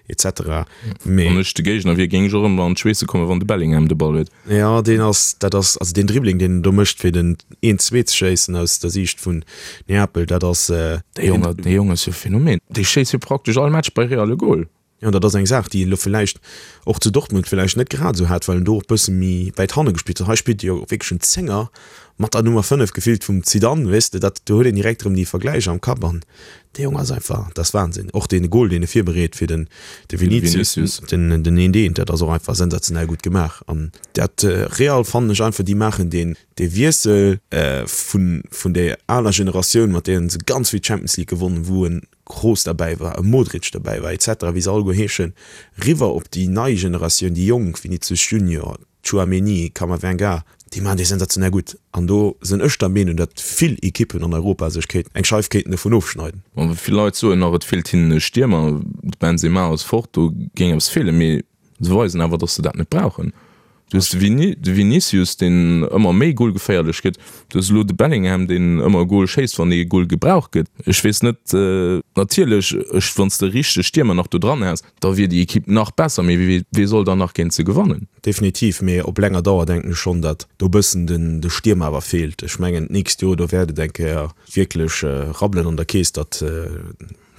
et cetera. Mee Wann ech de Géigner wier, géing ech och ëmmer an d'Schweesse kommen, wann de Bellingham de Ball huet. Jo, deen ass, dat ass, also deen Dribbling, deen en do mécht, fir den een zwee ze schéissen aus der Siicht vun Neapel, dat ass. Dee Jong, dee Jong ass jo e Phänomen. Dee schéisst jo praktesch all Match bei Real e Gol. Jo, an dat ass eng Saach, déi en elo villäicht och zu Dortmund villäicht net grad esou hat, well en do och bësse méi wäit hanne gespillt huet. Hei spillt e jo wierklech en Zénger mat der Nummer 5, gefillt vum Zidane, weess de, dat do huet een direkt erëm déi Vergläicher am Kapp an dee Jong ass einfach, dat ass Wahnsinn. Och dee Gol, deen e virbereet fir den de Vinicius, den den eent eent, dat ass och einfach sensationell gutt gemaach an dat Real fannen ech einfach, déi maachen deen dee Wiessel vun vun där aler Generatioun, mat deenen se ganz vill Champions League gewonnen, wou en Kroos derbäi war, e Modric derbäi war, etc. Wéi se alleguer heeschen, riwwer op déi nei Generatioun, déi Jonk, Vinicius Junior, Tchouaméni, Camavinga, déi maachen déi sensationell gutt. An do sinn ech der Meenung, datt vill Ekippen an Europa sech kéinten eng Scheif kéinten dovun ofschneiden. Bon, vill Leit soen nach, et feelt hinnen e Stiermer, de Benzema ass fort, do géing eppes feelen, mee Se weisen awer, dass se dat net brauchen. Du hues de Vini, de Vinicius, deen ëmmer méi golgeféierlech gëtt. Du hues elo de Bellingham, deen ëmmer e Gol schéisst, wann ee Gol gebraucht gëtt. Ech weess net, natierlech, ech, wann s de richteg Stiermer nach do dran häss, da wier déi Ekipp nach besser, mee wee, wee soll dann nach géint se gewannen? Definitiv, mee op länger Dauer denken ech schonn, datt do e bëssen den, de Stiermer awer feelt. Ech mengen, d'nächst Joer, do wäert et eng Kéier wierklech rabbelen an der Keess, datt,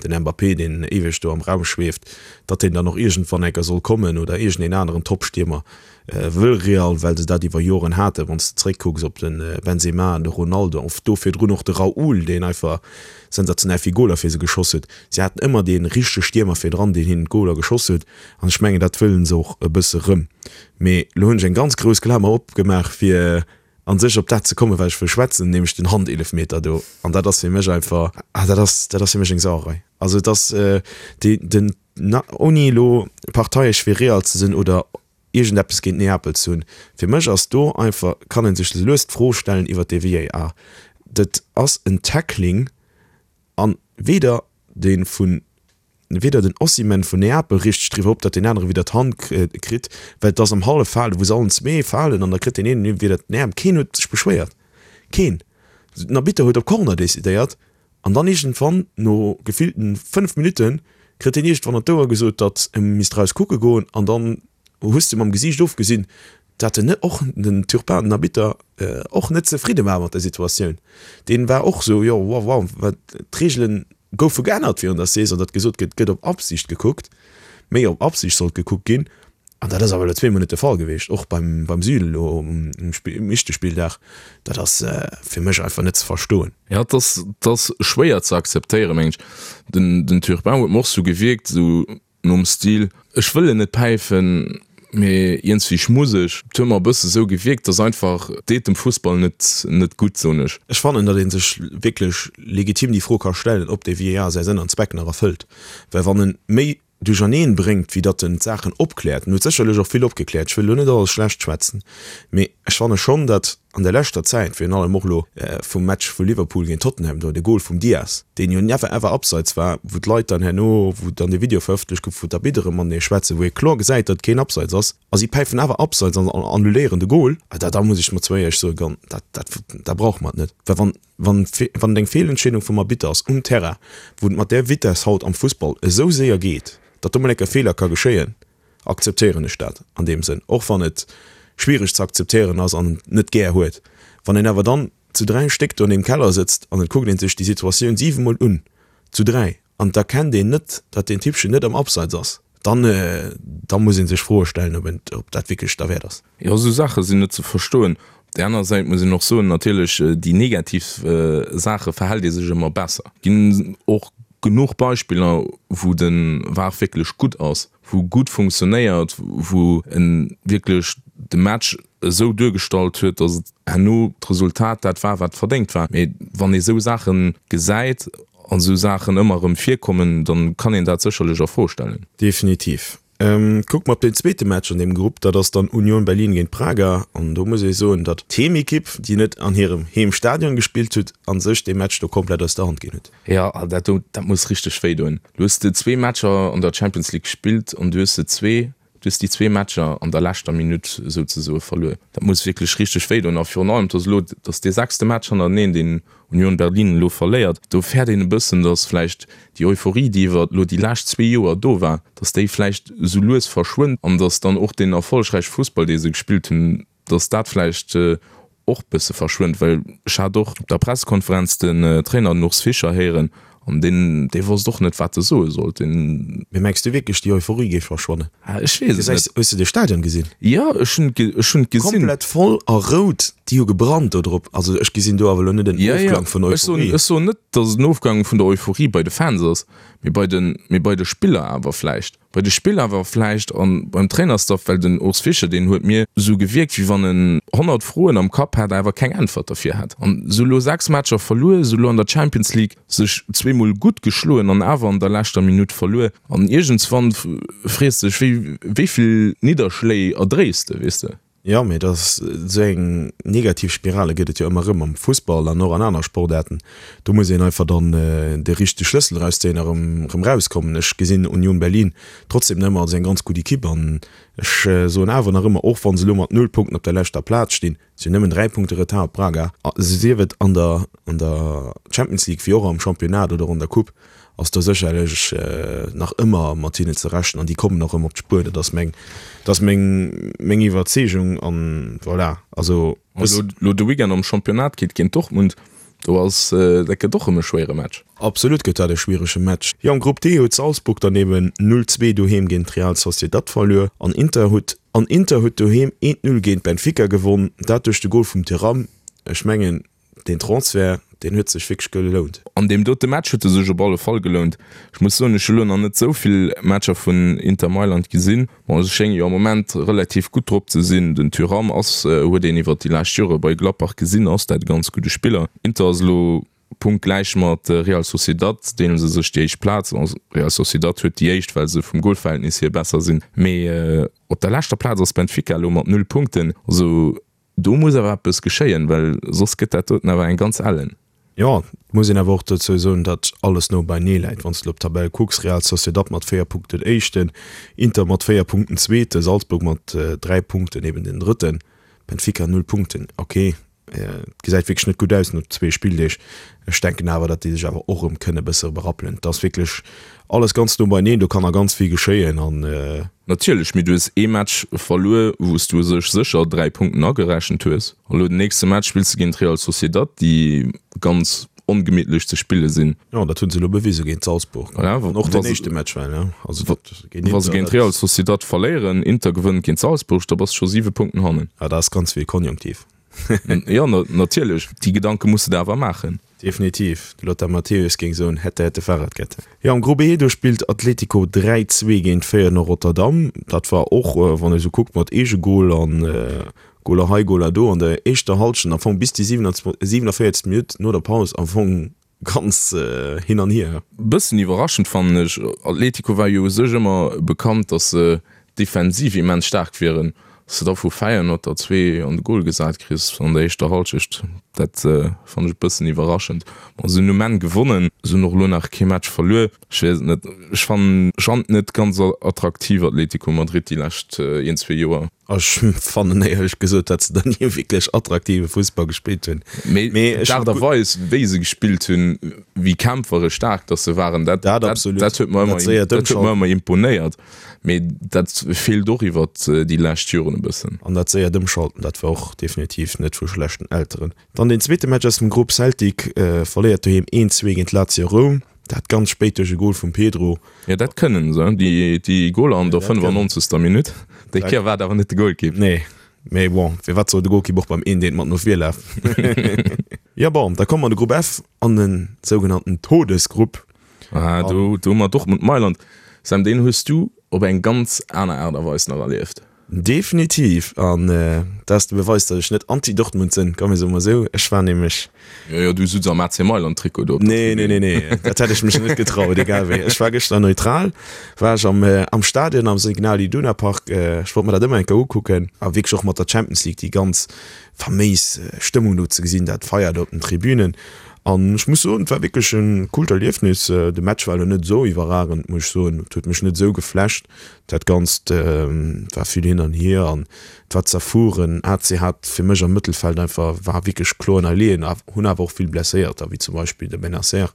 den Mbappé, deen éiweg do am Raum schweeft, datt deen dann och iergendwann enker soll kommen oder iergendeen aneren Top-Stiermer wëll Real, well se dat iwwer Joren haten. Wann s de zeréckkucks op de Benzema an de Ronaldo, of do virdrun och de Raúl, deen einfach sensationell vill Goler fir se geschoss huet. Si haten ëmmer dee richtege Stiermer virdran, deen hinnen d'Goler geschoss huet an ech mengen, dat wëllen se och e bësse rëm. Mee elo hunn ech eng ganz grouss Klamer opgemaach fir an sech op dat ze kommen, wat ech wëll schwätzen, nämlech den Handeelefmeter do. An dat ass fir mech einfach, ah, dat ass, dat ass fir mech eng Sauerei. Also et ass déi, den, na, ouni elo parteiesch fir Real ze sinn oder iergendeppes géint Neapel ze hunn, fir mech ass do einfach, kann ee sech lues d'Fro stellen iwwert dee VAR. Dat ass en Tackling an weder dee vun weder den Osimhen vun Neapel richteg driwwer op, datt deen anere widder d'Hand kritt, well et ass am Halleffale wou se allen zwee falen an da kritt deen een widder den Äerm. Keen huet sech beschwéiert, keen. Den Arbitter huet op Corner decidéiert an dann iergendwann no gefillten 5 Minutten kritt deen iergendwann an d'Ouer gesot, datt e misst raus kucke goen an dann hues de mam Gesiicht ofgesinn, datt en net och den Turpin, den Arbitter, och net zefridde war mat der Situatioun. Deen war och sou, jo wow wow, wat d'Reegelen goufe geännert virun der Saison, datt gesot gëtt, gëtt op Absicht gekuckt, méi op Absicht sollt gekuckt ginn. An dat ass awer elo zweemol net de Fall gewiescht, och beim beim Süle elo um um éischte Spilldag. Dat ass fir mech einfach net ze verstoen. Jo, et ass et ass schwéier ze akzeptéieren, mengen ech. Den den Turpin huet mer och sou gewierkt, sou Nom Stil, ech wëll en net päifen, mee iergendswéi muss ech. Et huet mer e bësse sou gewierkt, dass einfach, deet dem Fussball net net gutt, soen ech. Ech fannen, datt ee sech wierklech legitim déi Fro ka stellen, ob dee VAR säi Sënn an Zweck nach erfëllt. Well wann en méi duercherneen bréngt, wéi datt en d'Saachen opkläert, en huet sécherlech och vill opgekläert, ech wëll elo net alles schlecht schwätzen, mee ech fanne schonn, datt an der leschter Zäit, virun allem och elo vum Match vu Liverpool géint Tottenham do, de Gol vum Diaz, deen jo never ever abseits war, wou d'Leit dann herno, wou dann de Video verëffentlecht gouf, wou d'Arbitteren matenee schwätzen, wou ee kloer gesäit, datt et keen Abseits ass, a si päifen awer Abseits an annuléieren de Gol, da da muss ech mat zwou éierlech soen, gan, dat dat dat brauche mer et net. Well wann wann wann et eng Feelentscheedung vum Arbitter ass um Terrain, wou et mat där Vitess haut am Fussball esou séier geet, datt do mol eng Kéier Feeler ka geschéien, akzeptéieren ech dat an deem Sënn, och wann et schwiereg ze akzeptéieren ass an et net gär huet. Wann een awer dann zu 3 Stéck do an deem Keller sëtzt an et kuckt een sech déi Situatioun 7 mol un, zu 3, an et erkennt een net, datt deen Typpchen net am Abseits ass, dann, da muss ee sech Froe stellen, ob een, ob dat wierklech derwäert ass. Jo, esou Saache sinn net ze verstoen. Op där aner Säit muss een och soen, natierlech déi negativ Saache verhält ee sech ëmmer besser. Et ginn och genuch Beispiller, wou de var wierklech gutt ass, wou gutt funktionéiert, wou en wierklech de Match esou duergestallt huet, datt et herno d'Resultat dat war, wat verdéngt war. Mee wann ee sou Saache gesäit an esou Saachen ëmmer erëm virkommen, da kann een dat sécherlech a Fro stellen. Definitiv. Kucke mer op deen zweete Match an deem Grupp, dat ass dann Union Berlin géint Braga. An do muss ee soen, datt d'Heemekipp, déi net an hirem Heemstadion gespillt huet, a sech dee Match do komplett aus der Hand ginn huet. Jo, dat do, dat muss richteg wéi doen. Du hues de zwee Matcher an der Champions League gespillt an du hues se zwee. Du hues déi zwee Matcher an der leschter Minutt souzesoe verluer. Dat muss wierklech richteg wéi doen. A virun allem, dass elo, dass dee sechste Match hannerteneen, deen Union Berlin elo verléiert, do fäert een e bëssen, dass vläicht déi Euphorie, déi iwwer elo déi lescht zwee Joer do war, dass déi vläicht esou lues verschwënnt an dass dann och deen erfollegräiche Fussball, dee se gespillt hunn, dass dat vläicht och bësse verschwënnt, well ech hat och op der Pressekonferenz den Trainer, den Urs Fischer, héieren an deen, dee wosst och net, wat e soe sollt. Deen. Mee mengs du wierklech, déi Euphorie géif verschwannen? Ah, ech weess et net. Hues de de Stadion gesinn? Jo, ech hunn et, ech hunn et gesinn. Komplett voll a rout, déi hu gebrannt do drop. Also ech gesinn do awer elo net en Ofklang vun Euphorie. Ech soen net, datt et en Ofklang vun der Euphorie bei de Fans ass, mee bei de, mee bei de Spiller awer vläicht. Bei de Spiller awer vläicht an beim Trainerstaff, well den Urs Fischer, deen huet mir esou gewierkt, wéi wann en 100 Froen am Kapp hat, awer keng Äntwert derfir hat. An esou elo 6 Matcher verluer, esou elo an der Champions League sech zweemol gutt geschloen an awer an der leschter Minutt verluer. An iergendswann frees de dech, wéi wéi vill Nidderschléi erdréis de, weess de? Jo, mee dat ass esou eng negativ Spirale gëtt et jo ëmmer erëm am Fussball an och an aner Sportaarten. Do muss een einfach dann de richtege Schlëssel erauszéien a rëm rëm rauskommen. Ech gesinn Union Berlin trotzdem nach ëmmer als eng ganz gutt Ekipp an ech soen awer nach ëmmer, och wa se elo mat null Punkten op der leschter Plaz stinn, si hunn nëmmen 3 Punkte Retard op Braga, sief et an der an der Champions League wéi och am Championnat oder an der Coupe, ass do sécherlech nach ëmmer mat hinnen ze rechnen an déi kommen och erëm op d'Spuer. Dat ass meng, dat ass meng, meng Iwwerzeegung an voilà. Also. Elo, elo de Weekend am Championnat geet géint Dortmund, do ass, dat gëtt och erëm e schwéiere Match. Absolut gëtt dat e schwierege Match. Jo, am Grupp D huet Salzburg dann eben 0, 2 doheem géint Real Sociedad verluer an Inter huet, an Inter huet doheem 1, 0 géint Benfica gewonn, dat duerch de Gol vum Thuram. Ech mengen, Deen Transfert, deen huet sech wierklech gelount. An deem dote Match huet e sech op alle Fall gelount. Ech muss soen, ech hu lo nach net esou vill Matcher vun Inter Mailand gesinn. Bon, se schénge jo am Moment relativ gutt drop ze sinn. Den Thuram ass, huet een iwwert déi lescht Jore bei Gladbach gesinn, ass dat e ganz gudde Spiller. Inter ass elo punktgläich mat Real Sociedad, deele se sech déi éischt Plaz. Real Sociedad huet déi éischt, well se vum Golverhältnis hier besser sinn. Mee op der leschter Plaz ass Benfica elo mat 0 Punkten. Also Do muss awer eppes geschéien, well soss gëtt dat doten awer eng ganz ellen. Jo, et muss een awer och dozou soen, datt alles no beinee läit. Wann s de elo op d'Tabell kucks, Real Sociedad mat 4 Punkten Éischten, Inter mat 4 Punkten Zweeten, Salzburg mat 3 Punkten eben den Drëtten, Benfica 0 Punkten. Ok, et gesäit wierklech net gutt aus no zwee Spilldeeg. Ech denken awer, datt déi sech awer och erëm kënne bësse berappelen. Et ass wierklech alles ganz no beineen, do kann nach ganz vill geschéien an. Natierlech, mee du hues ee Match verluer, wou s du u sech sécher 3 Punkten agerechent hues. A lo den nächste Match spills de géint Real Sociedad, déi ganz ongemittlech ze spille sinn. Jo, dat hu se elo bewise géint Salzburg. Voilà, An och den éischte Match war, ne? Also dat géint Inter. Wa se géint Real Sociedad verléieren, Inter gewënnt géint Salzburg, da bass de scho 7 Punkten hannen. Ja, dat ass ganz vill Konjunktiv. Jo, natierlech, déi Gedanke muss de der awer maachen. Definitiv, de Lothar Matthäus géing soen, hätte, hätte, Fahrradkette. Jo, am Grupp E, do spillt Atletico 3, 2 géint Feyenoord Rotterdam. Dat war och, wann ee sou kuckt, mat Eegegol an Goler hei, Goler do an der éischter Hallschent, am Fong bis déi 47. Minutt no der Paus am Fong ganz hin an hier. Bëssen iwwerraschend fannen ech, Atletico war jo u sech ëmmer bekannt, datt se defensiv immens staark wieren, dass de da vu Feyenoord der zwee an de Gol gesat kriss an der éischter Hallschecht, dat fannen ech e bëssen iwwerraschend. Bon, se hunn um Enn gewonnen, se hunn och elo nach kee Match verluer. Ech weess et net, ech fannen et net ganz attraktiv Atletico Madrid déi lescht een, zwee Joer. Ech fannen éierlech gesot, datt se da ni wierklech attraktive Fussball gespillt hunn. Mee d'Aart a Weis, wéi se gespillt hunn, wéi kämpferesch staark datt se waren, dat huet mer ëmmer imponéiert. Mee dat feelt och iwwert déi lescht Joren e bëssen. An dat séiert Ëmschalten, dat war och definitiv net vu schlechten Elteren. Dann deen zweete Match aus dem Grupp, Celtic verléiert doheem 1, 2 géint Lazio Roum, dat ganz spéit duerch e Gol vum Pedro. Jo, dat kënnen se, déi Goler an der 95. Minutt. Déi Kéier war et awer net de Golkipp. Nee, mee bon, firwat soll de Golkipp och beim 1 eent mat no vir lafen? Jo bon, da komme mer an de Grupp F, an de sougenannten Todesgrupp. Ah, do, do hu mer Dortmund Mailand. Sam, deen hues du op eng ganz aner Aart a Weis nach erlieft. Definitiv, an dat ass de Beweis, datt ech net anti-Dortmund sinn, komm mir soe mol esou. Ech war nämlech. Jo, jo, du sutz am AC Mailand Trikot do op der Nee, nee, nee, nee, dat hätt ech mech net getraut, egal wéi. Ech war gëschter neutral, war ech am, am Stadion am Signal Iduna Park. Ech wollt mer dat ëmmer eng Kéier ukucken a wierklech och mat der Champions League déi ganz faméis Stëmmung do ze gesinn, dat Feier do op den Tribünen. An ech muss soen, et war wierklech e coolt Erliefnis. De Match war elo net esou iwwerragend, muss ech soen. Et huet mech net esou geflasht. Dat Ganzt war vill hin an hier an et war zerfueren. AC hat fir mech am Mëttelfeld einfach, war wierklech kloer ënnerleeën, hunn awer och vill Blesséierter, wéi zum Beispill de Bennacer,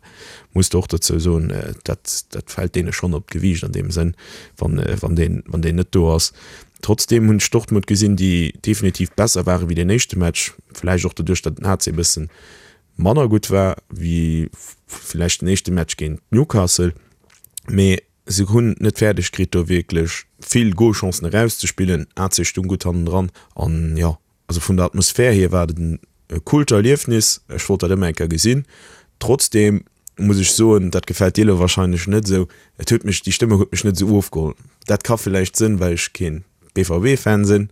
muss de och dozou soen. Dat, dat fält deene schonn op d'Gewiicht an deem Sënn, wann, wann deen, wann deen net do ass. Trotzdeem hunn ech Dortmund gesinn, déi definitiv besser ware wéi deen éischte Match, vläicht och doduerch, datt den AC e bëssen manner gutt war wéi vläicht den éischte Match géint Newcastle. Mee se hunn et net fäerdeg kritt, do wierklech vill Golchancen erauszespillen. AC stung gutt hannendran an jo, also vun der Atmosphär hier war et e coolt Erliefnis. Ech wollt dat ëmmer eng Kéier gesinn. Trotzdeem muss ech soen, dat gefält dir elo wahrscheinlech net esou, et huet mech, déi Stëmmung huet mech net esou ofgeholl. Dat ka villäicht sënn, well ech keen BVB-Fan sinn,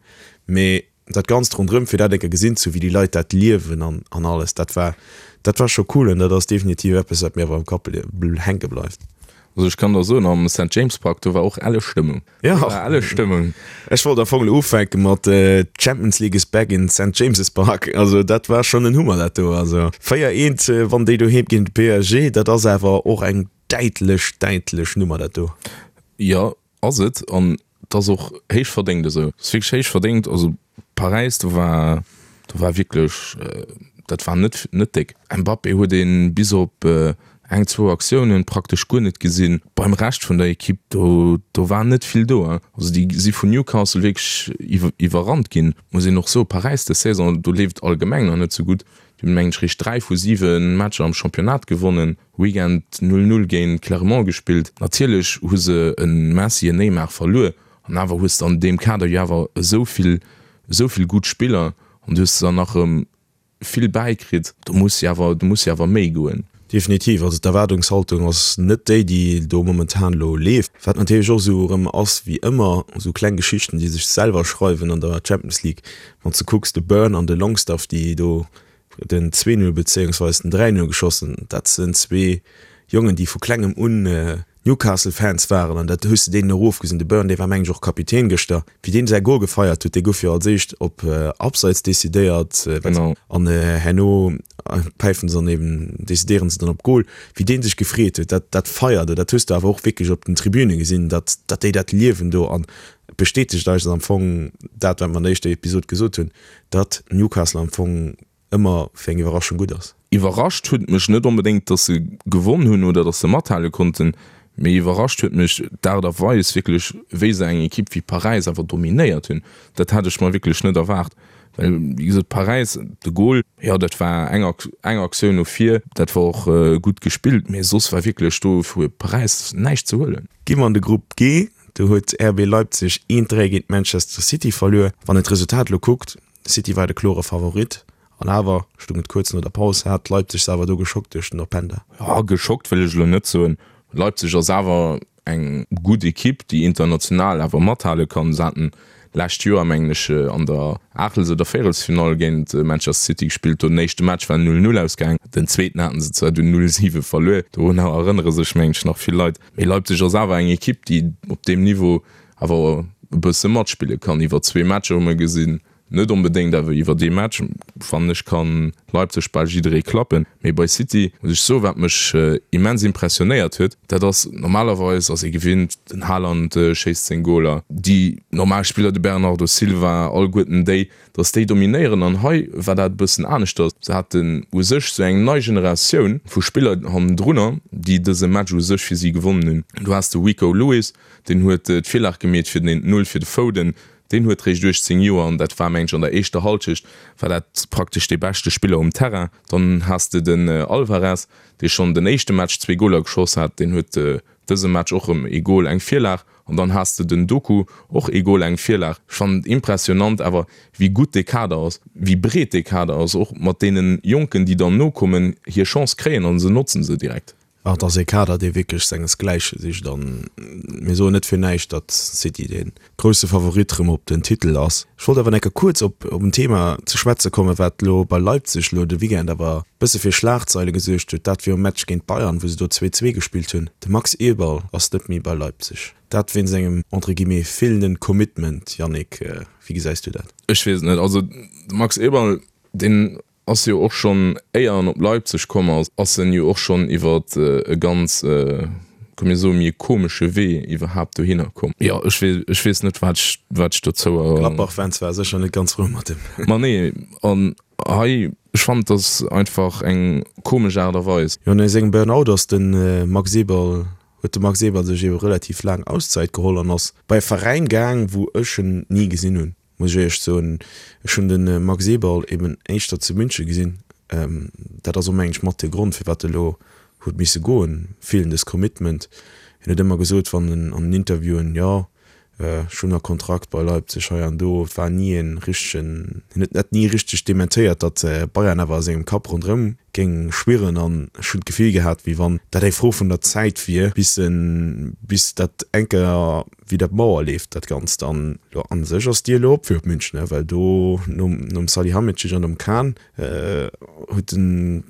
mee dat Ganzt ronderëm, fir dat eng Kéier gesinn ze hu wéi déi Leit dat liewen an an alles, dat war, dat war scho cool an dat ass definitiv eppes, wat mir awer am Kapp hänke bleift. Also ech kann der soen, am Saint James Park, do war och elle Stëmmung. Jo, do war elle Stëmmung. Ech wollt am Fong elo ufänke mat Champions League is back in Saint James's Park. Also dat war schonn en Hummer dat do. Also 4, 1 wann déi doheem géint de PSG, dat ass awer och eng däitlech, däitlech Nummer dat do. Jo, ass et. An et ass och héich verdéngt esou. Et ass wierklech héich verdéngt. Also Paräis, do war, do war wierklech, dat war net, net déck. Mbappé huet ee bis op eng, zwou Aktiounen praktesch guer net gesinn. Beim Rescht vun der Ekipp, do, do war net vill do. Also déi si vun Newcastle wierklech iwwerrannt ginn. Muss een och soen, Paräis dës Saison, do leeft allgemeng nach net sou gutt. Déi hunn, mengen ech, réischt 3 vu 7 Matcher am Championnat gewonnen. Weekend 0, 0 géint Clermont gespillt. Natierlech hu se e Messi, en Neymar verluer. An awer hues de an deem Kader jo awer esou vill, esou vill gutt Spiller an du hues der nach erëm vill bäikritt. Do muss jo awer, do muss jo awer méi goen. Definitiv. Also d'Erwaardungshaltung ass net déi, déi do momentan elo leeft. Wat natierlech och esou erëm ass, wéi ëmmer, esou kleng Geschichten, déi sech selwer schreiwen an der Champions League. Wann s de kucks, de Burn an de Longstaff, déi do den 2-0 bezéiungsweis den 3-0 geschoss hunn, dat sinn zwee Jongen, déi vu klengem un Newcastle Fans waren an dat hues de deenen och ofgesinn. De Burn, dee war mengen ech och Kapitän gëschter, wéi deen säi Gol gefeiert huet, dee gouf jo als éischt op Abseits decidéiert an herno päifen se dann eben, decidéieren se dann op Gol. Wéi deen sech gefreet huet, dat dat Feier do, dat hues de awer och wierklech op den Tribüne gesinn, datt datt déi dat liewen do an et bestätegt eis am Fong dat, wat mer an der éischter Episod gesot hunn, datt Newcastle am Fong ëmmer fir eng Iwwerraschung gutt ass. Iwwerrascht huet mech net onbedéngt, dass se gewonn hunn oder dass se mathale konnten, mee iwwerrascht huet mech d'Aart a Weis wierklech, wéi se eng Ekipp wéi Paräis awer dominéiert hunn. Dat hat ech mer wierklech net erwaart, well wéi gesot, Paräis, de Gol, jo dat war eng eng Aktioun no vir, dat war och gutt gespillt, mee soss war wierklech do vu Paräis näischt ze huelen. Gi mer an de Grupp G, do huet RB Leipzig 1, 3 géint Manchester City verluer. Wann een d'Resultat elo kuckt, City war de klore Favorit an awer stung et kuerz no der Paus, hat Leipzig se awer do geschockt duerch den Openda. Jo, geschockt wëll ech elo net soen. Leipzig ass awer eng gutt Ekipp, déi international awer mathale kann. Se haten d'lescht Joer, mengen ech, an der Aachtels oder Véierelsfinall géint Manchester City gespillt. Do den éischte Match war 0, 0 ausgaang. Den zweeten haten se zwar dunn 0, 7 verluer. Dorunner erënnere sech, mengen ech, nach vill Leit. Mee Leipzig ass awer eng Ekipp, déi op deem Niveau awer e bësse matspille kann. Iwwer zwee Matcher hu mer gesinn, net onbedéngt, awer iwwer ee Match, fannen ech, ka Leipzig bal jidderee klappen. Mee bei City muss ech soen, wat mech immens impressionéiert huet, dat ass, normalerweis ass ee gewinnt, den Haaland schéisst seng Goler, déi normal Spiller, de Bernardo Silva, alleguerten déi, datt déi dominéieren. An hei war dat e bëssen aneschters. Se haten u sech sou eng nei Generatioun vu Spiller hannendrunner, déi dëse Match u sech fir si gewonnen hunn. Du has de Rico Lewis, Deen huet d'Virlag gemeet fir den 1, 0 fir de Foden. Deen huet réischt 18 Joer an dat war, mengen ech, an der éischter Halschecht war dat praktesch dee beschte Spiller um Terrain. Dann has de den Alvarez, dee schonn den éischte Match zwee Goler geschoss hat. Deen huet dëse Match och erëm ee Gol, eng Virlag. An dann has de den Doku, och ee Gol, eng Virlag. Ech fannen et impressionant awer, wéi gutt dee Kader ass, wéi breet dee Kader ass, och mat deene Jonken, déi dann nokommen, hir Chance kréien a se notzen se direkt. Et ass ee Kader, dee wierklech sengesgläiche sicht an mir soen net fir näischt, datt City dee grousse Favorit rëm op den Titel ass. Ech wollt awer enke kuerz op en Thema ze schwätze kommen, wat elo bei Leipzig elo de Weekend awer e bësse fir Schlagzeile gesuergt huet. Dat virum Match géint Bayern, wou se do 2, 2 gespillt hunn. De Max Eberl ass net méi bei Leipzig. Dat wéinst engem entre guillemets feelenden Commitment. Yannick, wéi gesäis du dat? Ech weess et net. Also de Max Eberl, deen. Ass jo och schonn, éier en op Leipzig komm ass, ass en jo och schonn iwwer e ganz, komm mir soe méi e komesche Wee iwwerhaapt dohinner komm. Jo, ech weess, ech weess net, wat ech, wat ech dozou. Gladbach-Fans ware sécher net ganz frou mat him. Ma nee, an hei, ech fannen, et ass einfach eng komesch Aart a Weis. Jo, no sengem Burnout ass de Max Eberl, huet de Max Eberl sech ebe relativ laang Auszäit geholl an ass bei e Veräin gaang, wou ech en ni gesinn hunn. Muss ech éierlech soen, ech hunn de Max Eberl eben éischter zu München gesinn. Dat ass och mengen ech mat de Grond firwat e lo huet misse goen, feelendes Commitment. Hien huet ëmmer gesot wann en an den Interviewen, jo ech hunn nach Kontrakt bei Leipzig hei an do. Et war ni e richtegen, hien huet dat ni richteg dementéiert, datt Bayern awer a sengem Kapp ronderëm géing schwirren an ech hunn d'Gefill gehat wéi wann dat eng Fro vun der Zäit wier bis en, bis dat eng Kéier wéi dat Mauer leeft dat Ganzt. An jo a sech ass d'Dier elo op fir op München, ne, well do nom nom Salihamidzic an nom Kahn huet den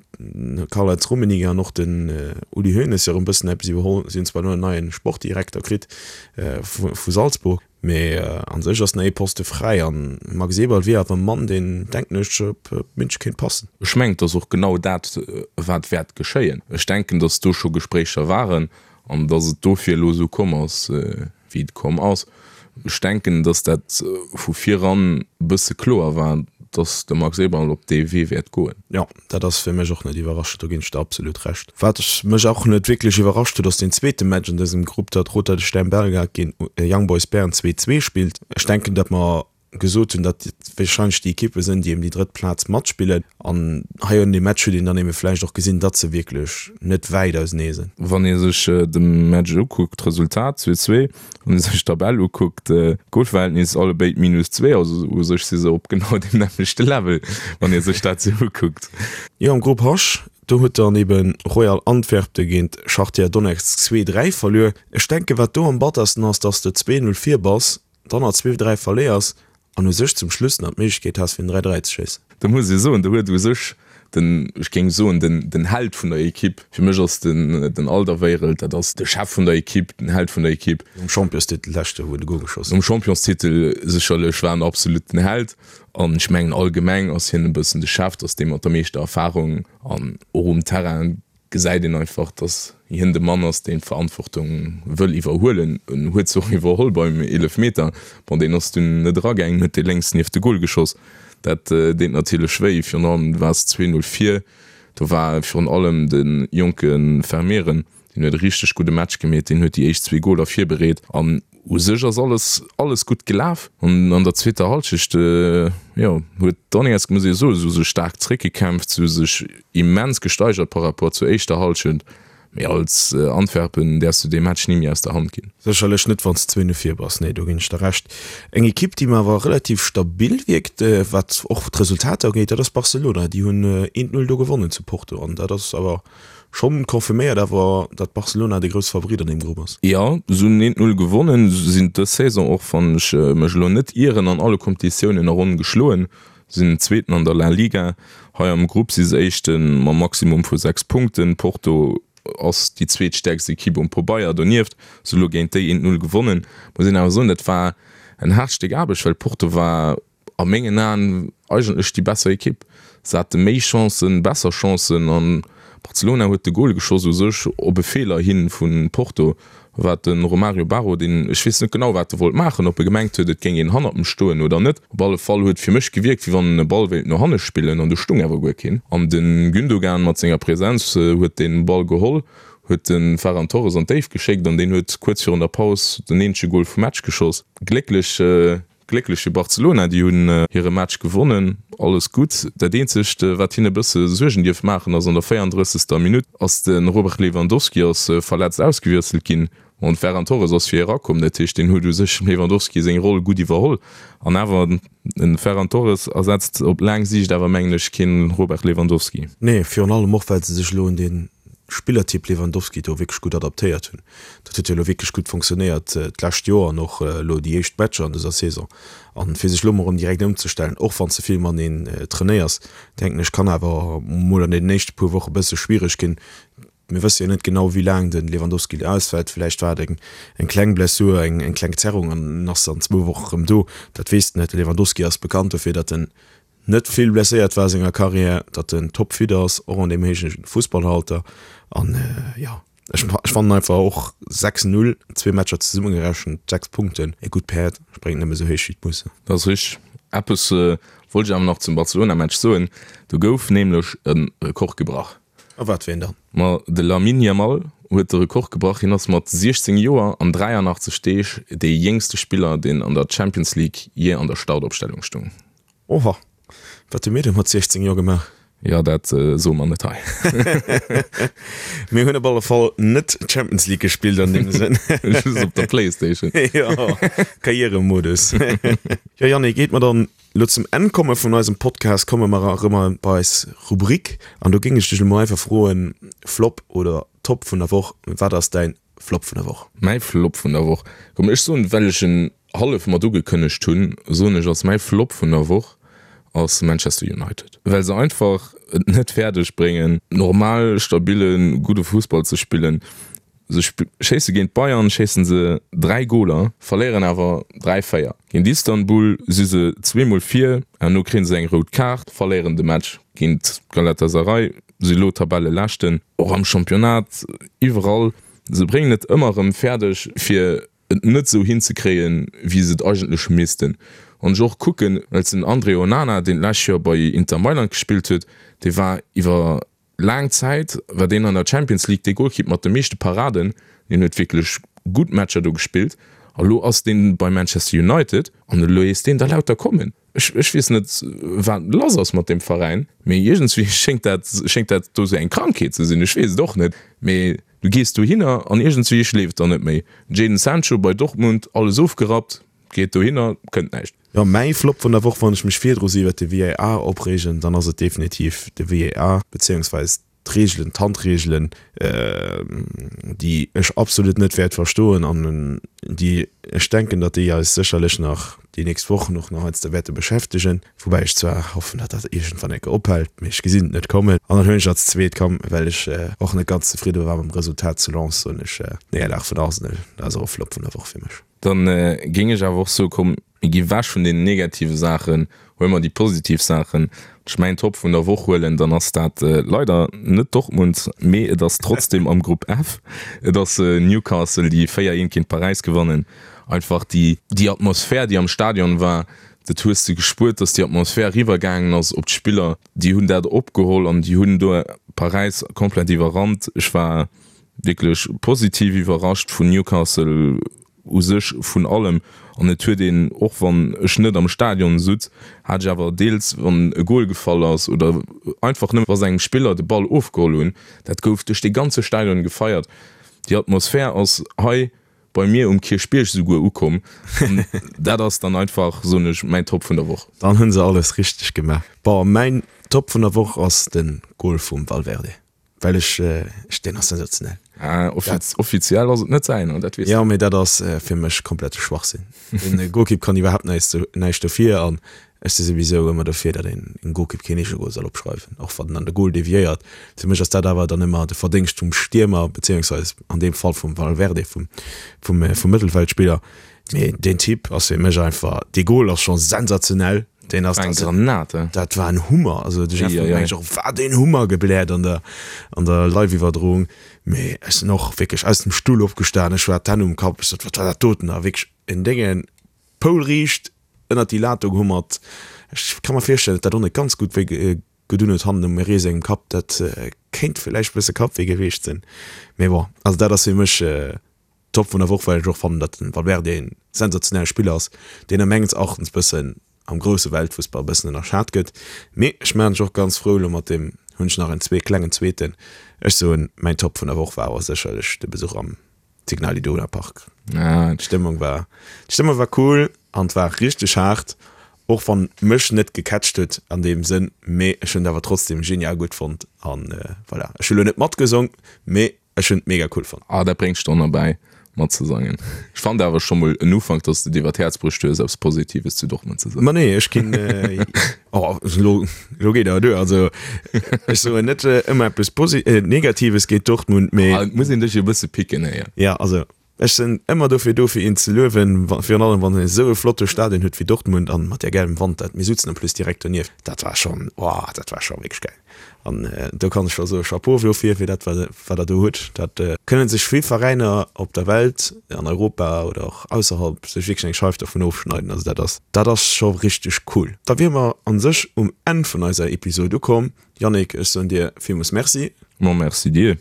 Karl-Heinz Rummenigge an och den Uli Hoeneß jo erëm bëssen eppes iwwerholl. Si hunn zwar elo en neie Sportdirekter kritt vu vu Salzburg. Mee an sech ass nach ee Poste fräi an Max Eberl wier awer e Mann, deen, denken ech, op München kéint passen. Ech mengen, et ass och genau dat, wat wäert geschéien. Ech denken, datt do scho Gespréicher waren an datt et dofir elo esou komm ass, wéi et komm ass. Ech denken, datt dat vu viran e bësse kloer war, datt de Max Eberl op dee Wee wäert goen. Jo, Dat ass fir mech och net iwwerraschend, do ginn ech der absolut Recht. Wat mech och net wierklech iwwerrascht huet, ass deen zweete Match an dësem Grupp, datt Roter Stern Belgrad géint Young Boys Bern 2, 2 spillt. Ech denken, datt mer gesot hunn, datt et warscheinlech déi Ekippe sinn, déi ëm déi drëtt Plaz matspillen. An hei un deem Match huet een dann ebe vläicht och gesinn, datt se wierklech net wäit ausenee sinn. Wann ee sech de Match ukuckt, d'Resultat 2, 2, Wann ee sech d'Tabell ukuckt, Golverhältnis allebéid minus 2, also u sech si se op genau deem nämmlechte Level, wann ee sech dat sou ukuckt. Jo, am Grupp H, do huet dann eben Royal Antwerpen géint Schachtier Donetsk 2, 3 verluer. Ech denken, wat do am battersten ass, dass de 2, 0 vir bass, dann nach 2, 3 verléiers an u sech zum Schluss nach d'Méiglechkeet has fir en 3, 3 ze schéissen. Do muss ee soen, do huet u sech den, ech géing soen, den, den Held vun der Ekipp, fir mech ass den, den Alderweireld, dat ass de Chef vun der Ekipp, den Held vun der Ekipp. Nom Championstitel leschte wou en de Gol geschoss huet. Nom Championstitel sécherlech war en absolut den Held an ech mengen allgemeng ass hien e bëssen de Chef, dat ass dee mat der meeschter Erfarung an och um Terrain gesäit een einfach, dass hien de Mann ass, deen d'Verantwortung wëll iwwerhuelen. En huet se och iwwerholl beim Eelefmeter. Bon, deen ass dunn net eragaangen, huet dee lénks nieft de Gol geschoss. Dat deet natierlech wéi, virun allem du waars 2, 0 vir. Do war virun allem de jonke Vermeeren, deen huet e richteg gudde Match gemeet, deen huet déi éischt zwee Goler virbereet an U sech ass alles alles gutt gelaf an an der zweeter Hallschecht, jo, huet Donetsk, muss ee soen, se hu sech staark zréckgekämpft, se hu sech immens gesteigert par rapport zur éischter Hallschent, mee als Antwerpen däerfs du dee Match ni méi aus der Hand ginn. Sécherlech net, wann s de zwéin no vir bass, nee, do ginn ech der Recht. Eng Ekipp, déi mer awer relativ stabil wierkt, wat och d'Resultater ugeet, dat ass Barcelona. Déi hunn eent Null do gewonnen zu Porto an dat ass awer Schonn confirméiert awer, datt Barcelona de grousse Favorit an deem Grupp ass. Jo, se hunn eent Null gewonnen, sinn dës Saison och, wann ech mech elo net ieren, an alle Kompetitiounen a Ronn geschloen, sinn Zweeten an der La Liga. Hei am Grupp si se Éischte mam Maximum vu 6 Punkten. Porto ass déi zweetstäerkst Ekipp um Pobeier. Donieft se elo géint déi eent Null gewonnen. Muss een awer soen, dat war en haart Stéck Aarbecht, well Porto war a mengen Aen eigentlech déi besser Ekipp. Se hate méi Chancen, besser Chancen an Barcelona huet de Gol geschoss u sech op e Feeler hi vu Porto, wat de Romario Barro, deen, ech weess net genau wat e wollt maachen, ob e gemengt huet et géing een hannert em stoen oder net, op alle Fall huet fir mech gewierkt wéi wann en e Ball wéilt no hanne spillen an do stung awer guer keen an de Gündogan mat senger Präsenz huet dee Ball geholl, huet de Ferran Torres an d'Déift geschéckt an deen huet kuerz virun der Paus den eenzege Gol vum Match geschoss. Glécklech. Glécklech fir Barcelona, déi hunn hire Match gewonnen, alles gutt. Dat eenzegt wat hinne bësse Suergen dierf maachen ass, an der 34. Minutt ass de Robert Lewandowski ass verletzt ausgewiesselt ginn an de Ferran Torres ass fir hie erakomm. Dat heescht deen huet u sech dem Lewandowski seng Roll gutt iwwerholl an awer de Ferran Torres ersetzt op laang Siicht awer mengen ech keen Robert Lewandowski. Nee, virun allem och well se sech elo un dee Spillertyp Lewandowski do wierklech gutt adaptéiert hunn. Dat huet jo elo wierklech gutt fonctionnéiert d'lescht Joer an och elo déi éischt Matcher an dëser Saison. An fir sech elo mol erëm direkt ëmzestellen, och wann s de vill mateneen trainéiers, denken ech, kann awer mol an deenen éischte puer Woche bësse schwiereg ginn. Mir wësse jo net genau, wéi laang de Lewandowski elo ausfält. Villäicht war et eng eng kleng Blessur, eng eng kleng Zerrung an en ass an zwou Woche erëm do. Dat weess de net. De Lewandowski ass bekannt dofir, datt en. net vill blesséiert war a senger Karriär, datt en topfit ass, och an deem héije Fussballalter. An jo, ech fannen einfach och 6, 0, zwee Matcher zesummegerechent, 6 Punkten, e gutt Päerd spréngt nëmme sou héich wéi d'Musse. Dat ass richteg. Eppes wollt ech awer nach zum Barcelona-Match soen, do gouf nämlech e Rekord gebrach. A wat fir een dann? Ma de Lamine Yamal huet de Rekord gebrach. Hien ass mat 16 Joer an 83 Deeg dee jéngste Spiller, deen an der Champions League jee an der Startopstellung stoung. Oha, wat hu mir denn mat 16 Joer gemaach? Jo, dat soe mer net hei. Mir hunn op alle Fall net Champions League gespillt an deem Sënn. Just op der Playstation. Jo, Karrieremodus. Jo, Yannick, iert mer dann elo zum Enn komme vun eisem Podcast, komme mer erëm bei eis Rubrik. An do géing ech dech elo mol einfach froen, Flop oder Top vun der Woch, wat ass däin Flop vun der Woch? Mäi Flop vun der Woch, komm ech soen, well ech en hallef mat ugekënnegt hunn, soen ech ass mäi Flop vun der Woch ass Manchester United, well se einfach et net fäerdeg bréngen normal stabille gudde Fussball ze spillen. Se schéisse géint d'Bayern schéissen se 3 Goler, verléieren awer 3, 4. Géint Istanbul si se zweemol vir, herno kréie se eng rout Kaart, verléieren de Match géint Galatasaray. Si elo Tabelleleschten, och am Championnat, iwwerall. Se bréngen et ëmmer erëm fäerdeg, fir et net esou hinzekréien, wéi se et eigentlech missten. Wann ech och kucken, well den André Onana, deen d'lescht Joer bei Inter Mailand gespillt huet, dee war iwwer laang Zäit war deen an der Champions League dee Golkipp mat de meeschte Paraden. Deen huet wierklech gutt Matcher do gespillt. A lo ass dee bei Manchester United an elo heesst deen da lauter kommen. Ech, ech weess net, wat lass ass mat deem Veräin, mee iergendswéi schéngt dat, schéngt dat do sou eng Krankheet ze sinn. Ech weess et och net, mee du gees dohinner an iergendswéi schleeft der net méi. Jadon Sancho bei Dortmund, alles ofgerappt, geet dohinner, kënnt näischt. Jo, mäi Flop vun der Woch, wann ech mech virdru sou iwwert de VAR opreegen, dann ass et definitiv de VAR, beziéungsweis d'Reegelen, d'Handreegelen, déi ech absolut net wäert verstoen an déi ech denken, datt déi eis sécherlech nach déi nächst Wochen och nach heiansdo wäerte beschäftegen, woubäi ech zwar hoffen, datt dat iergendwann eng Kéier ophält, mee ech gesinn et net kommen. An dann hunn ech als zweet, komm, well ech och net ganz zefridde war mam Resultat zu Lens, soen ech Néierlag vun Arsenal, dat ass och e Flop vun der Woch fir mech. Dann géing ech awer och soen, komm, Mir gi wech vun den negative Saachen, huele mer déi positiv Saachen. Wann ech mäin Top vun der Woch huelen, dann ass dat leider net Dortmund, mee et ass trotzdeem am Grupp F. Et ass Newcastle, déi 4, 1 géint Paräis gewannen. Einfach déi déi Atmosphär, déi am Stadion war, dat hues de gespuert, dass déi Atmosphär eriwwer gaangen ass op d'Spiller. Déi hunn dat opgeholl an déi hunn do Paräis komplett iwwerrannt. Ech war wierklech positiv iwwerrascht vun Newcastle. U sech vun allem. An et huet een, och wann ech net am Stadion sutz, hat ech awer deels, wann e Gol gefall ass oder einfach nëmme wa se engem Spiller de Ball ofgeholl hunn, dat gouf duerch dee ganze Stadion gefeiert. Déi Atmosphär ass hei bei mir um Kierchbierg souguer ukomm. An dat ass dann einfach, soen ech, mäin Top vun der Woch. Dann hunn se alles richteg gemaach. Bon, mäin Top vun der Woch ass de Gol vum Valverde. Well ech, ech, deen ass sensationell. Ah, offiz offiziell ass et net säiner, dat weess de. Jo, mee dat ass fir mech komplette Schwachsinn. Den Golkipp kann iwwerhaapt näischt, näischt dofir an ech si souwisou ëmmer dofir, datt een engem Golkipp keen Eegegol soll opschreiwen, och wann en an de Gol deviéiert. Fir mech ass dat awer dann ëmmer de Verdéngscht vum Stiermer, beziéungsweis an deem Fall vum Valverde, vum, vum, vum Mëttelfeldspiller. Mee deen Typ ass fir mech einfach, dee Gol ass scho sensationell. Deen ass eng Granate. Dat war en Hummer. Also de Jeff huet mengt och wat een Hummer gebläert an der an der Live-Iwwerdroung. Mee ech sinn och wierklech aus dem Stull opgestan, ech war d'Hänn um Kapp, ech sot wat war dat doten a wierklech en Déngen poulriicht ënnert déi Lat do gehummert. Ech ka mer virstellen, datt dat och net ganz gutt wéi gedun huet hannen um Meret sengem Kapp. Dat kéint villäicht e bësse Kappwéi gewiescht sinn. Mee bon, also dat ass fir mech Top vun der Woch, well ech och fannen, datt den Valverde een sensationelle Spiller ass, deen a mengens Erachtens bëssen am grousse Weltfussball bëssen ënnerschat gëtt. Mee ech maachen mech och ganz frou elo mat deem, hunn ech nach en zwee klengen zweeten. Ech soen, mäin Top vun der Woch war awer sécherlech de Besuch am Signal Iduna Park. D'Stëmmung war, d'Stëmmung war cool an et war richteg haart, och wann mech net gecatcht huet an deem Sënn, mee ech hunn et awer trotzdem genial gutt fonnt an voilà. Ech hu lo net matgesong, mee Ech hun et mega cool fonnt. Ah, dat bréngt Stonn erbäi matzesangen. Ech fand awer scho mol en Ufank, dass de et iwwer d'Häerz bruecht hues, eppes Positives zu Dortmund ze soen. Ma nee, ech ginn, oh, elo, elo geet awer duer. Also, ech soen net ëmmer eppes Posi-, Negatives géint Dortmund, mee. Ah, et muss een dech jo e bësse picken, héier. Ja, also. Ech sinn ëmmer dofir do fir een ze luewen, virun allem wann een esou e flotte Stadion huet wéi Dortmund an mat där gäilem Wand, dat mir sutzen en plus direkt donieft, dat war schonn, oh dat war scho wierklech gäil an do kann ech scho soe Chapeau dofir fir dat wat wat der do hutt. Dat kënnen sech vill Veräiner op der Welt, an Europa oder och ausserhalb sech wierklech eng Scheif dovun ofschneiden, also dat ass dat ass scho richteg cool. Da wiere mer an sech um Enn vun eiser Episode ukomm. Yannick, ech soen dir villmools Merci. Ma merci dir.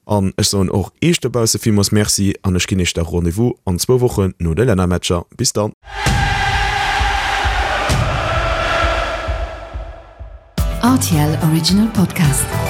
An ech soen och Iech dobausse villmools Merci an ech ginn Iech da Rendez-vous an zwou Wochen no de Lännermatcher. Bis dann! Rtl Original Podcast.